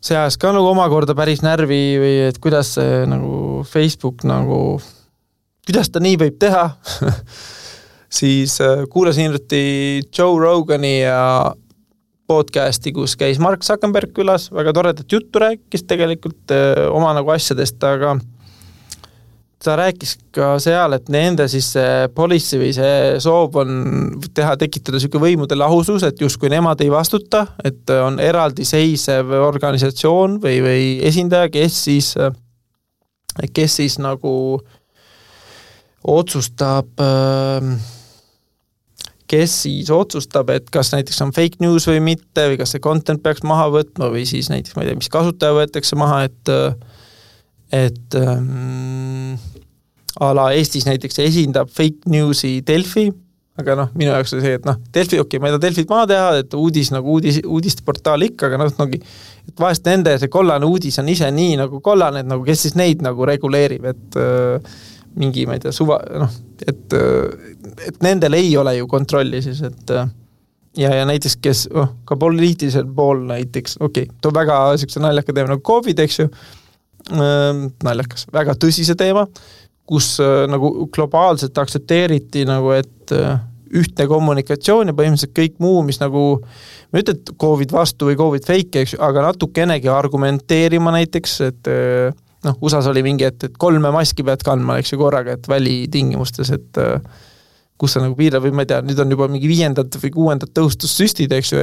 see ajas ka nagu omakorda päris närvi või et kuidas see nagu Facebook nagu, kuidas ta nii võib teha, siis kuulasin hiljuti Joe Rogani ja podcasti, kus käis Mark Zuckerberg külas, väga toredat juttu rääkis tegelikult oma nagu asjadest, aga ta rääkis ka seal, et nende siis see policy või see soov on tekitada selline võimude lahusus, et justkui nemad ei vastuta, et on eraldi seisev organisatsioon või esindaja, kes siis nagu otsustab, et kas näiteks on fake news või mitte, või kas see content peaks maha võtma, või siis näiteks, ma ei tea, mis kasutaja võetakse maha, et ala Eestis näiteks esindab fake newsi Delfi, aga noh, minu jaoks oli see, et noh, Delfi, okei, ma ei taha Delfit maha teha, et uudisteportaal ikka, aga noh, et vahest nende see kollane uudis on ise nii nagu kollane, et nagu kes siis neid nagu reguleerib, et mingi, ma ei tea, et nendel ei ole ju kontrolli siis, et ja näiteks, kes ka poliitilisel pool näiteks, too väga selline naljaka teema nagu COVID, eks ju, naljakas, väga tõsise teema, kus nagu globaalselt aktsepteeriti nagu, et ühtne kommunikatsioon ja põhimõtteliselt kõik muu, mis nagu, ma ütlen, et COVID vastu või COVID fake, eks ju, aga natukenegi argumenteerima näiteks, et USAs oli mingi, et 3 maski pead kandma, eks ju, korraga, et välitingimustes, et kus sa nagu piirab või ma ei tea, nüüd on juba mingi 5. või 6. tõhustussüstid, eks ju,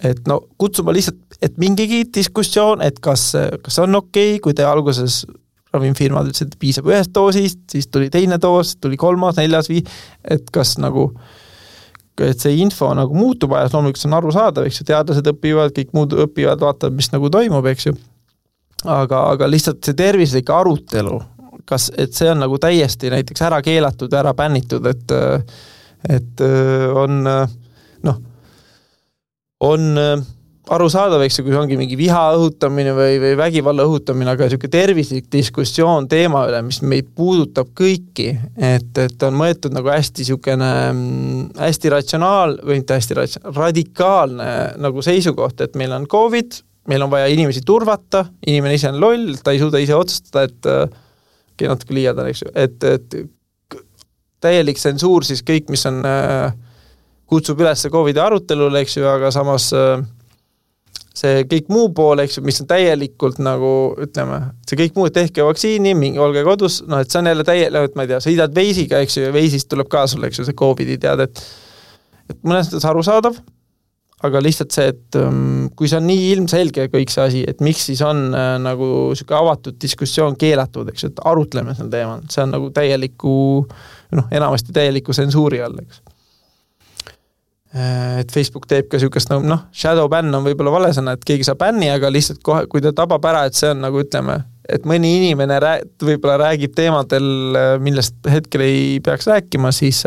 et no kutsuma lihtsalt, et mingigi diskussioon, et kas on okei, kui te alguses ravimfirmad ütlesid, et piisab 1 doosist, siis tuli 2 doos, tuli 3., 4., 5, et kas nagu, et see info nagu muutub ajas, loomulikult see on arusaadav, eks ju, teadlased õpivad, kõik muud õpivad, vaatavad, mis nagu toimub, eks ju. Aga lihtsalt see tervislik arutelu, et see on nagu täiesti näiteks ära keelatud, ära bännitud, et on arusaadav, eks ju, kui ongi mingi viha õhutamine või vägivalla õhutamine, aga selline tervislik diskussioon teema üle, mis meid puudutab kõiki, et on mõetud nagu hästi selline hästi radikaalne nagu seisukoht, et meil on COVID, meil on vaja inimesi turvata, inimene ise on loll, ta ei suuda ise otsustada, et natuke liiadan, eks ju, et täielik tsensuur siis kõik, mis on, kutsub üles COVID arutelule, eks ju, aga samas see kõik muu pool, eks ju, mis on täielikult nagu, ütleme, see kõik muu, tehke vaktsiini, olge kodus, et see on jälle et ma ei tea, sa hidad veisiga, eks ju, ja veisist tuleb ka sulle, eks ju, see COVID-i tead, et mõnes mõttes arusaadav, aga lihtsalt see, et kui see on nii ilmselge kõik see asi, et miks siis on nagu selline avatud diskussioon keelatud, eks, et arutleme sel teemal, see on nagu enamasti täieliku tsensuuri all, eks. Et Facebook teeb ka sellisest shadow ban on võib-olla valesõna, et keegi saab bänni, aga lihtsalt kohe, kui ta tabab ära, et see on nagu ütleme, et mõni inimene võib-olla räägib teemadel, millest hetkel ei peaks rääkima, siis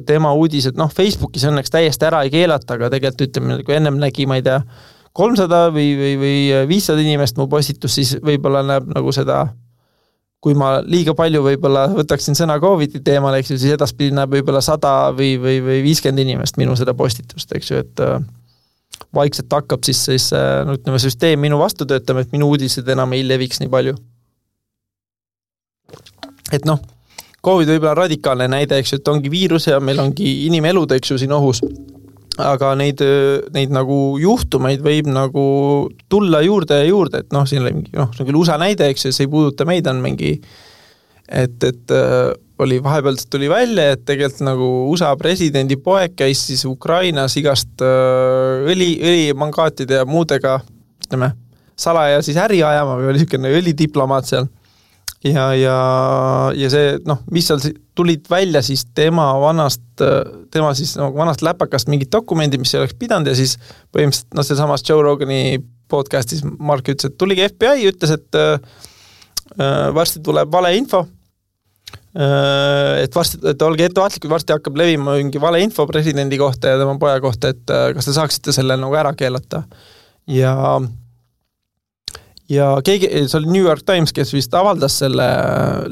tema uudised, Facebookis õnneks täiesti ära ei keelata, aga tegelikult ütleme, kui ennem nägi, ma ei tea, 300 või 500 inimest mu postitus, siis võib-olla näeb nagu seda, kui ma liiga palju võib-olla võtaksin sõna COVID-i teemal, eks ju, siis edaspidi näeb võib-olla 100 või 50 inimest minu seda postitust, eks ju, et vaikselt hakkab siis ütleme, süsteem minu vastu töötama, et minu uudised enam ei leviks nii palju. Et COVID võib-olla radikaalne näide, eks ju, et ongi viirus ja meil ongi inimelud, eks ju, siin ohus. Aga neid nagu juhtumeid võib nagu tulla juurde ja juurde, et siin oli mingi, see on küll USA näide, eks ju, see ei puuduta meid, on mingi, et oli vahepealt tuli välja, et tegelikult nagu USA presidendi poeg käis siis Ukrainas igast õlimangaatide ja muudega, ütleme, salaja siis äri ajama või oli selline õlidiplomaat seal. Ja see, mis seal tulid välja siis tema siis vanast läpakast mingid dokumendid, mis ei oleks pidanud ja siis põhimõtteliselt, see samas Joe Rogani podcastis Mark ütles, et tuligi FBI, ütles, et varsti tuleb valeinfo, et olge ettevaatlikud, varsti hakkab levima mingi valeinfo presidendi kohta ja tema poja kohta, et kas te saaksite selle nagu ära keelata. Ja keegi, see oli New York Times, kes vist avaldas selle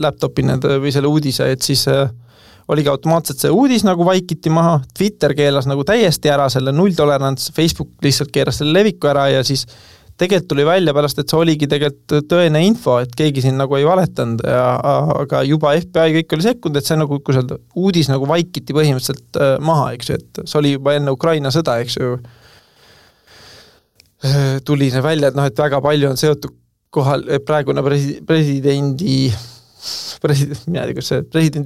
laptopi või selle uudise, et siis oligi automaatselt see uudis nagu vaikiti maha, Twitter keelas nagu täiesti ära selle nulltolerants, Facebook lihtsalt keeras selle leviku ära ja siis tegelikult tuli välja pärast, et see oligi tegelikult tõene info, et keegi siin nagu ei valetanud, aga juba FBI kõik oli sekkunud, et see nagu, kui seal uudis nagu vaikiti põhimõtteliselt maha, eks ju, et see oli juba enne Ukraina sõda, eks ju, tuli see välja, et et väga palju on seotud kohal praegune presidendi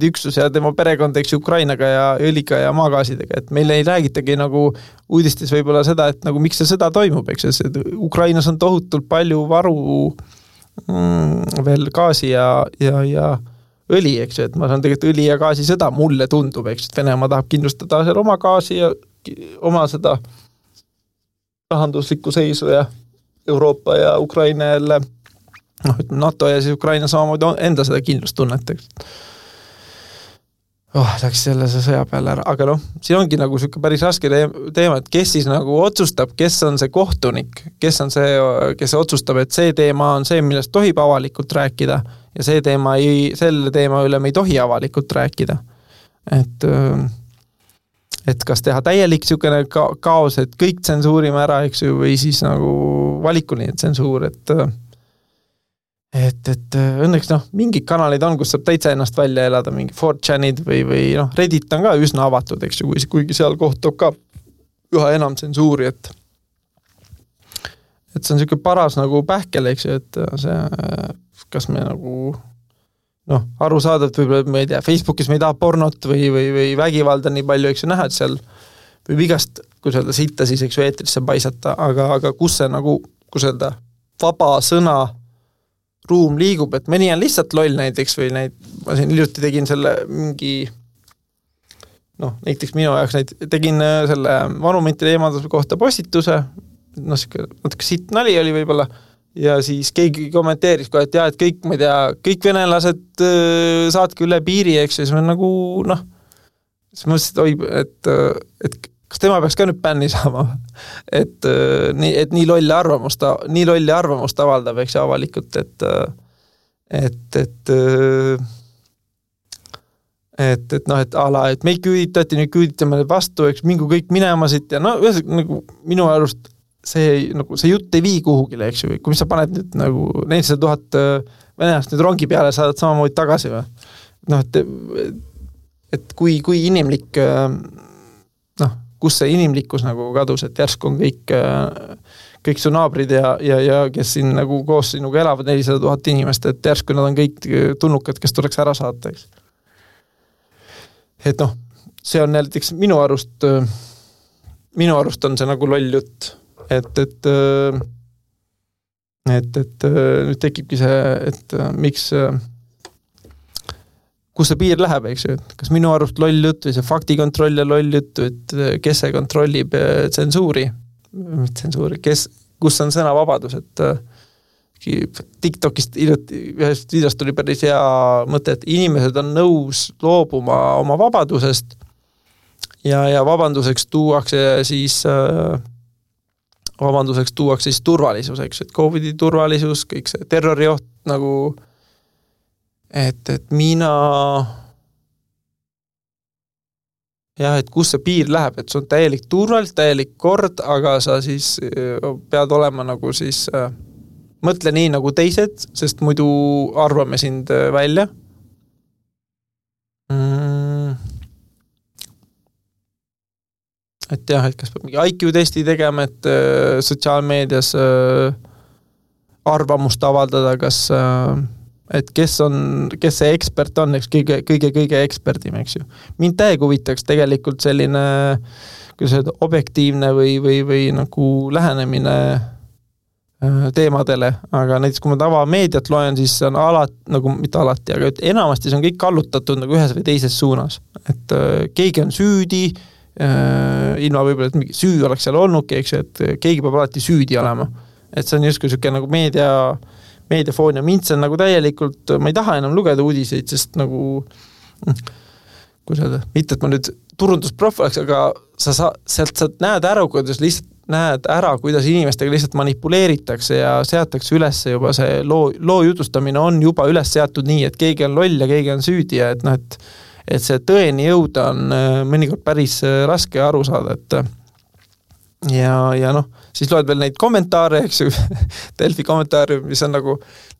üksus ja tema perekond, eks Ukrainaga ja õliga ja maagaasidega, et meil ei räägitagi nagu uudistes võib-olla seda, et nagu miks see sõda toimub, eks et Ukrainas on tohutult palju varu veel gaasi ja õli, eks et ma saan tegelikult õli ja gaasi sõda, mulle tundub, eks et Venemaa tahab kindlustada seal oma gaasi ja oma seda rahanduslikku seisu ja Euroopa ja Ukraina jälle NATO ja siis Ukraina samamoodi enda seda kindlustunnet. Läks selle sõja peale ära, aga siin ongi nagu selline päris raske teema, et kes siis nagu otsustab, kes on see kohtunik, kes on see, kes otsustab, et see teema on see, millest tohib avalikult rääkida ja selle teema üle me ei tohi avalikult rääkida. Et kas teha täielik selline kaos, et kõik tsensuurime ära, eks ju, või siis nagu valikuline tsensuur, et õnneks mingid kanalid on, kus saab täitsa ennast välja elada, mingi 4chanid või Reddit on ka üsna avatud, eks ju, kuigi seal kohtab ka üha enam tsensuuri, et see on selline paras nagu pähkel, eks ju, et see, kas me nagu arusaadavalt võib-olla, ma ei tea, Facebookis me ei taha pornot või vägivalda nii palju, eks ju, näha, et seal võib igast, kui öelda, sitta siis, eks ju, eetrisse paisata, aga kus see nagu, kui öelda, vaba sõna ruum liigub, et mõni on lihtsalt loll näiteks või ma siin hiljuti tegin selle mingi näiteks minu jaoks tegin selle monumentide eemalduse kohta postituse, natuke sitt nali oli võib-olla ja siis keegi kommenteeris kohe, et et kõik, ma ei tea, kõik venelased saatke üle piiri, eks ja siis ma nagu siis mõtlesin, et kas tema peaks ka nüüd bänni saama, et nii lolli arvamust avaldab, eks avalikult, et ala, et meid küüditati, nüüd küüditame vastu, eks mingu kõik minema siit ja nagu minu arust see jutt ei vii kuhugile, eks ju, kui mis sa paned nüüd nagu 400 000 venelast nüüd rongi peale, saadad samamoodi tagasi või? Et kui inimlik kus see inimlikkus nagu kadus, et järsku on kõik su naabrid ja kes siin nagu koos sinuga elavad 400 000 inimest, et järsku nad on kõik tunnukad, kes tuleks ära saata, eks. Et see on näiteks minu arust on see nagu loll jutt, et nüüd tekibki see, et miks kus see piir läheb, eks ju, et kas minu arust loll jutt või see faktikontroll ja loll jutt, et kes see kontrollib tsensuuri, kus on sõnavabadus, et TikTokist ühest videost tuli päris hea mõte, et inimesed on nõus loobuma oma vabadusest ja vabanduseks tuuakse siis turvalisus, eks, et COVID-i turvalisus, kõik see terrorioht nagu et mina et kus see piir läheb, et see on täielik turvalisus, täielik kord, aga sa siis pead olema nagu siis mõtle nii nagu teised, sest muidu arvame sind välja. Et jah, et kas peab mingi IQ-testi tegema, et sotsiaalmeedias arvamust avaldada, kas et kes see ekspert on, eks kõige eksperdim, eks ju. Mind täiega huvitaks tegelikult selline objektiivne või nagu lähenemine teemadele, aga näiteks kui ma tavameediat loen, siis on nagu mitte alati, aga enamasti see on kõik kallutatud nagu ühes või teises suunas. Et keegi on süüdi, ilma võib-olla, et mingi süü oleks seal olnudki, eks ju, et keegi peab alati süüdi olema. Et see on justkui selline nagu meediafoon ja mind see on nagu täielikult, ma ei taha enam lugeda uudiseid, sest nagu kuidas öelda, mitte, et ma nüüd turundusprof oleks, aga sealt sa näed ära, kuidas inimestega lihtsalt manipuleeritakse ja seatakse üles juba see loo jutustamine on juba üles seatud nii, et keegi on loll ja keegi on süüdi ja et, et see tõeni jõuda on mõnikord päris raske aru saada, et ja siis loed veel neid kommentaare, eks ju, Delfi kommentaare, mis on nagu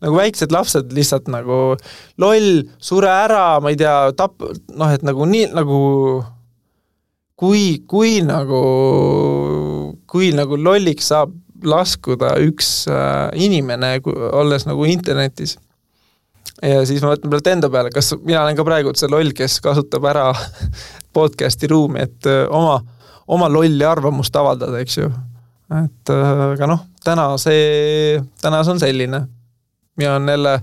väiksed lapsed lihtsalt nagu loll, sure ära, ma ei tea, et nagu nii, nagu kui nagu lolliks saab laskuda üks inimene, olles nagu internetis. Ja siis ma võtan pealt enda peale, kas mina olen ka praegu see loll, kes kasutab ära podcasti ruumi, et oma lolli arvamust avaldada, eks ju. Et aga täna see on selline. Ja on jälle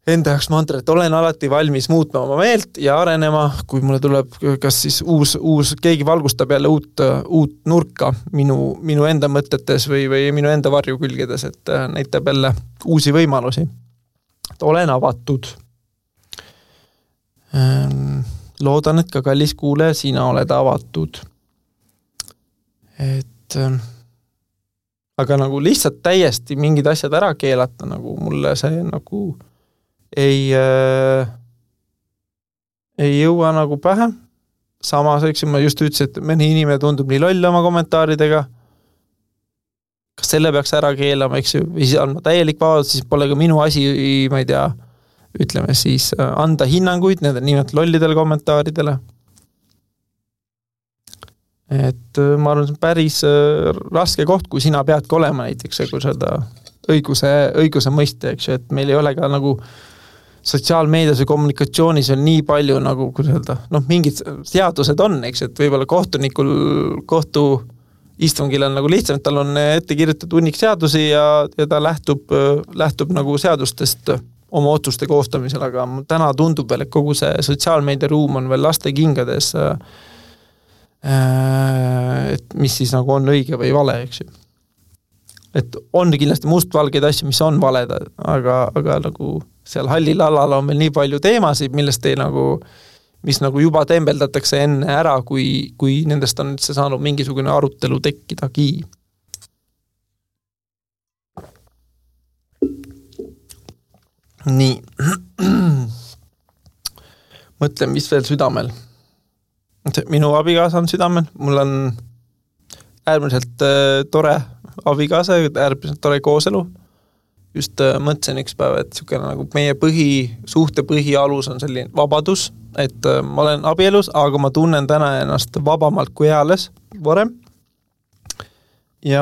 enda jaoks mantra, et olen alati valmis muutma oma meelt ja arenema, kui mulle tuleb kas siis uus keegi valgustab jälle uut nurka minu enda mõtetes või minu enda varjukülgedes, et näitab jälle uusi võimalusi. Et olen avatud. Loodan, et ka kallis kuule, sina oled avatud. Et aga nagu lihtsalt täiesti mingid asjad ära keelata, nagu mulle see nagu ei jõua nagu pähe. Samas, eks ma just ütlesin, et mõni inimene tundub nii loll oma kommentaaridega. Kas selle peaks ära keelama, eks ju, või siis on täielik vabadus, siis pole ka minu asi, ma ei tea, ütleme siis, anda hinnanguid nende nimelt lollidele kommentaaridele. Et ma arvan, see on päris raske koht, kui sina peadki olema näiteks kui seda õiguse mõiste, eks ju, et meil ei ole ka nagu sotsiaalmeedias või kommunikatsioonis on nii palju nagu, kuidas öelda, mingid seadused on, eks, et võib-olla kohtu istungil on nagu lihtsam, et tal on ette kirjutatud hunnik seadusi ja ta lähtub nagu seadustest oma otsuste koostamisel, aga täna tundub veel, et kogu see sotsiaalmeedia ruum on veel laste kingades, et mis siis nagu on õige või vale, eks ju. Et on kindlasti mustvalgeid asju, mis on valed, aga nagu seal hallil alal on meil nii palju teemasid, mis nagu juba tembeldatakse enne ära, kui nendest on üldse saanud mingisugune arutelu tekkidagi. Nii. Mõtlen, mis veel südamel. Minu abikaasa on südamel. Mul on äärmiselt tore abikaasa, äärmiselt tore kooselu. Just mõtlesin üks päev, et nagu meie suhte põhialus on selline vabadus, et ma olen abielus, aga ma tunnen täna ennast vabamalt kui eales varem. Ja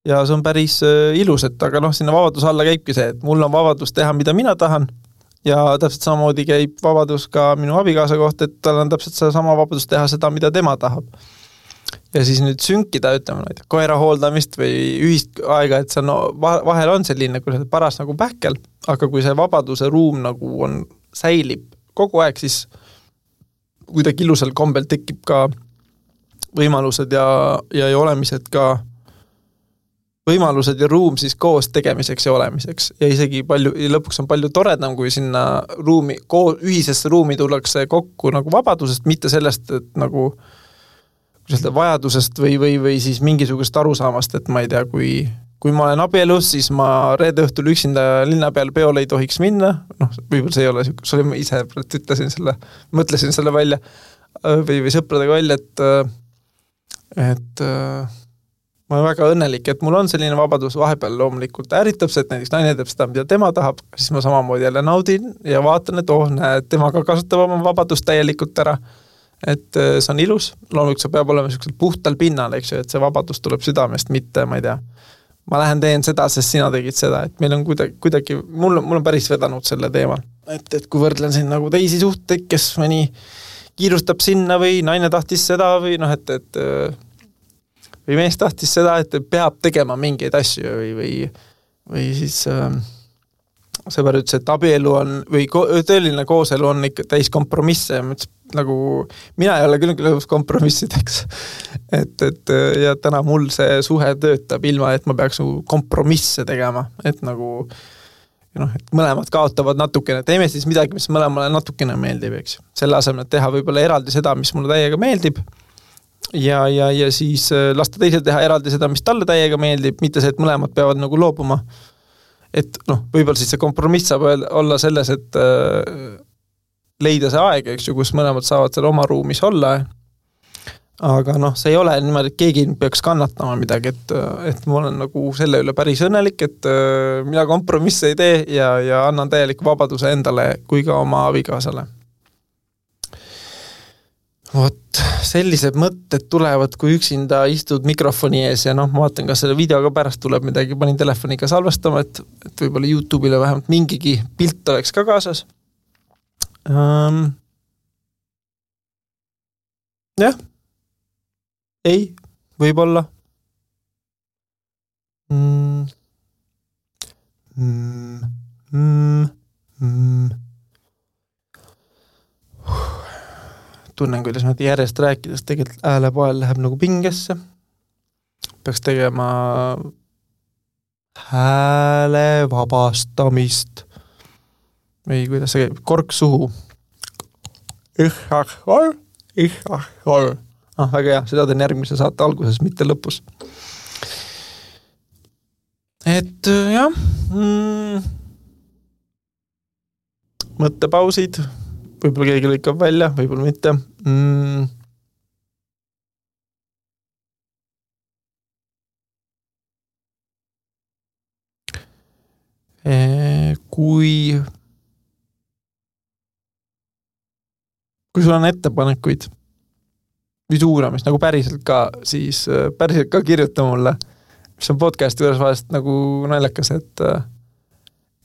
see on päris ilus, et aga sinna vabadus alla käibki see, et mul on vabadus teha, mida mina tahan ja täpselt samamoodi käib vabadus ka minu abikaasa kohta, et tal on täpselt sama vabadus teha seda, mida tema tahab. Ja siis nüüd sünkida, ütleme, koera hooldamist või ühist aega, et see vahel on selline paras nagu pähkel, aga kui see vabaduse ruum nagu säilib kogu aeg, siis kuidagi ilusal kombel tekib ka võimalused ja olemised ka võimalused ja ruum siis koos tegemiseks ja olemiseks. Ja isegi lõpuks on palju toredam, kui sinna ühisesse ruumi tullakse kokku nagu vabadusest, mitte sellest, et nagu vajadusest või siis mingisugust arusaamast, et ma ei tea, kui ma olen abielus, siis ma reede õhtul üksinda linna peal peole ei tohiks minna, võib-olla see ei ole, see oli ma ise mõtlesin selle välja või sõpradega välja, et ma olen väga õnnelik, et mul on selline vabadus vahepeal loomulikult ärritab see, et näiteks naine teeb seda, mida tema tahab, siis ma samamoodi jälle naudin ja vaatan, et näed, tema ka kasutab oma vabadust täielikult ära. Et see on ilus, loomulikult see peab olema puhtal pinnal, eks ju, et see vabadus tuleb südamest, mitte, ma ei tea, ma lähen teen seda, sest sina tegid seda, et meil on kuidagi mul on päris vedanud selle teemal, et kui võrdlen siin nagu teisi suhteid, kes mõni kiirustab sinna või naine tahtis seda või või mees tahtis seda, et peab tegema mingeid asju või siis sõber ütles, et abielu on, või tõeline kooselu on ikka täis kompromisse ja ma ütles, nagu mina ei ole küll lõpus kompromissideks. Et ja täna mul see suhe töötab ilma, et ma peaks kompromisse tegema, et nagu et mõlemad kaotavad natukene, teeme siis midagi, mis mõlemale natukene meeldib, eks. Selle asemel, et teha võib-olla eraldi seda, mis mulle täiega meeldib ja siis lasta teisel teha eraldi seda, mis talle täiega meeldib, mitte see, et mõlemad peavad nagu loobuma. Et võib-olla siis see kompromiss saab olla selles, et leida see aeg, eks ju, kus mõlemad saavad seal oma ruumis olla. Aga see ei ole niimoodi, et keegi peaks kannatama midagi, et ma olen nagu selle üle päris õnnelik, et mina kompromisse ei tee ja annan täieliku vabaduse endale kui ka oma abikaasale. Vot, sellised mõtted tulevad, kui üksinda istud mikrofoni ees ja ma vaatan, kas selle videoga pärast tuleb midagi, panin telefoniga salvestama, et võib-olla YouTube'ile vähemalt mingigi pilt oleks ka kaasas. Jah. Ei, võib-olla. Tunnen, kuidas ma järjest rääkides tegelikult häälepoel läheb nagu pingesse. Peaks tegema hääle vabastamist. Või kuidas see käib? Kork suhu. Väga hea, seda teen järgmise saate alguses, mitte lõpus. Et jah, mõttepausid, võib-olla keegi lõikab välja, võib-olla mitte. Kui sul on ettepanekuid või suuramist, nagu päriselt ka, siis päriselt ka kirjuta mulle, mis on podcasti juures vahest nagu naljakas, et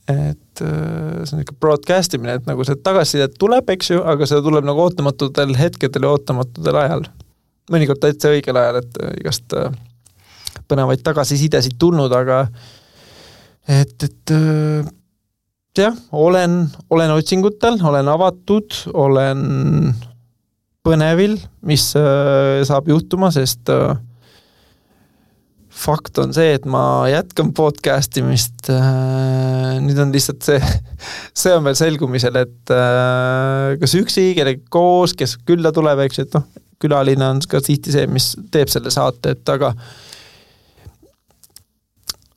see on ikka broadcastimine, et nagu see tagasisidet tuleb, eks ju, aga see tuleb nagu ootamatutel hetkedel ja ootamatutel ajal. Mõnikord täitsa õigel ajal, et igast põnevaid tagasisidesid tulnud, aga jah, olen otsingutel, olen avatud, olen põnevil, mis saab juhtuma, sest fakt on see, et ma jätkan podcastimist. Nüüd on lihtsalt see on veel selgumisel, et kas üksi, kellega koos, kes külla tuleb, eks, et külaline on ka tihti see, mis teeb selle saate, et aga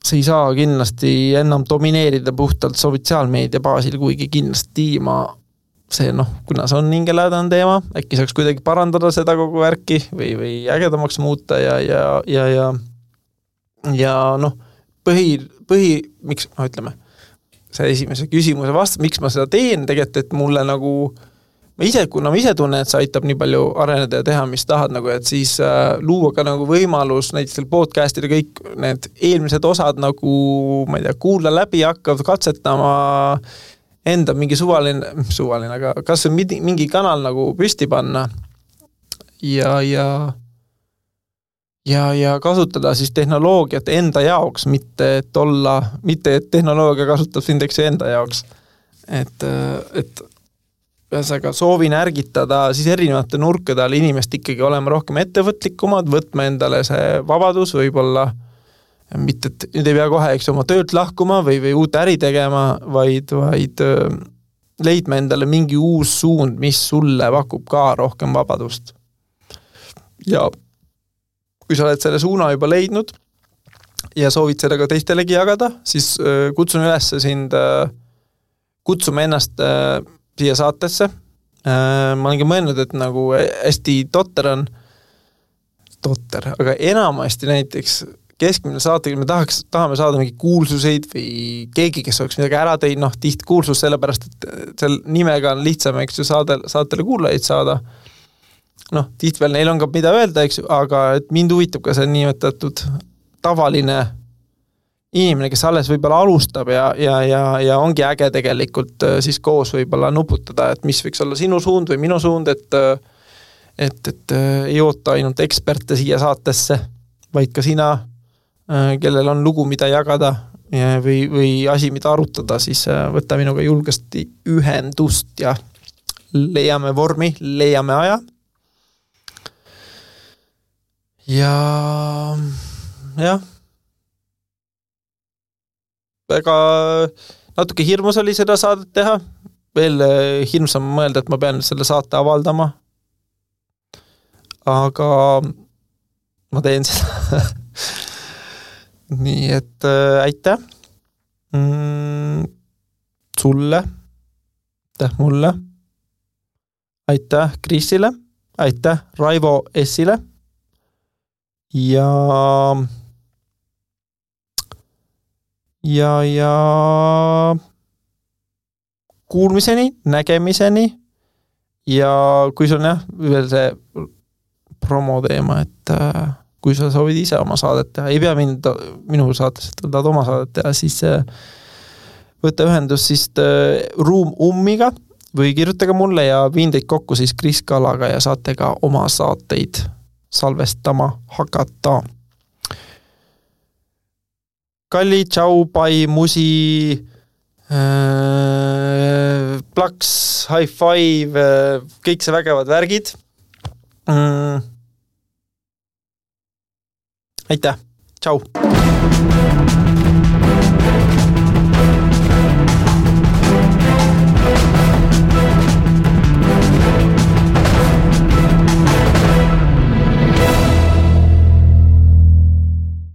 see ei saa kindlasti enam domineerida puhtalt sotsiaalmeedia baasil, kuigi kindlasti ma see, kuna see on hingelädane teema, äkki saaks kuidagi parandada seda kogu värki või ägedamaks muuta ja miks, ütleme, see esimese küsimuse vast, miks ma seda teen, tegelikult, et mulle nagu kuna ma ise tunnen, et see aitab nii palju areneda ja teha, mis tahad, nagu, et siis luua ka nagu võimalus näiteks selle podcastile kõik need eelmised osad nagu, ma ei tea, kuula läbi hakkavad katsetama enda mingi suvaline, aga kas on mingi kanal nagu püsti panna ja kasutada siis tehnoloogiat enda jaoks, mitte et tehnoloogia kasutab sind enda jaoks. Et ühesõnaga soovin ärgitada siis erinevate nurkade all inimest ikkagi olema rohkem ettevõtlikumad, võtma endale see vabadus, võib-olla mitte, et nüüd ei pea kohe oma töölt lahkuma või uut äri tegema, vaid leidma endale mingi uus suund, mis sulle pakub ka rohkem vabadust. Ja kui sa oled selle suuna juba leidnud ja soovid seda ka teistelegi jagada, siis kutsun üles sind kutsuma ennast siia saatesse. Ma olengi mõelnud, et nagu hästi totter, aga enamasti näiteks keskmine saatega me tahame saada mingi kuulsuseid või keegi, kes oleks midagi ära teinud, tihti kuulsus sellepärast, et seal nimega on lihtsam, eks ju, saatele kuulajaid saada. Tihti veel neil on ka mida öelda, eks ju, aga et mind huvitab ka see nimetatud tavaline inimene, kes alles võib-olla alustab ja ongi äge tegelikult siis koos võib-olla nuputada, et mis võiks olla sinu suund või minu suund, et ei oota ainult eksperte siia saatesse, vaid ka sina, kellel on lugu, mida jagada või asi, mida arutada, siis võta minuga julgesti ühendust ja leiame vormi, leiame aja. Ja väga natuke hirmus oli seda saadet teha. Veel hirmsam mõelda, et ma pean selle saate avaldama. Aga ma teen seda. Nii, et aitäh sulle, aitäh mulle, aitäh Krisile, aitäh Raivo S-ile ja kuulmiseni, nägemiseni ja kui sul on veel see promo teema, et kui sa soovid ise oma saadet teha, ei pea minu saates, et tahad oma saadet teha, siis võta ühendus siis Ruum Ummiga või kirjutage mulle ja viin teid kokku siis Kris Kallaga ja saate ka oma saateid salvestama hakata. Kalli, tšau, pai, musi, plaks, high five, kõik see vägevad värgid. Aitäh, tšau!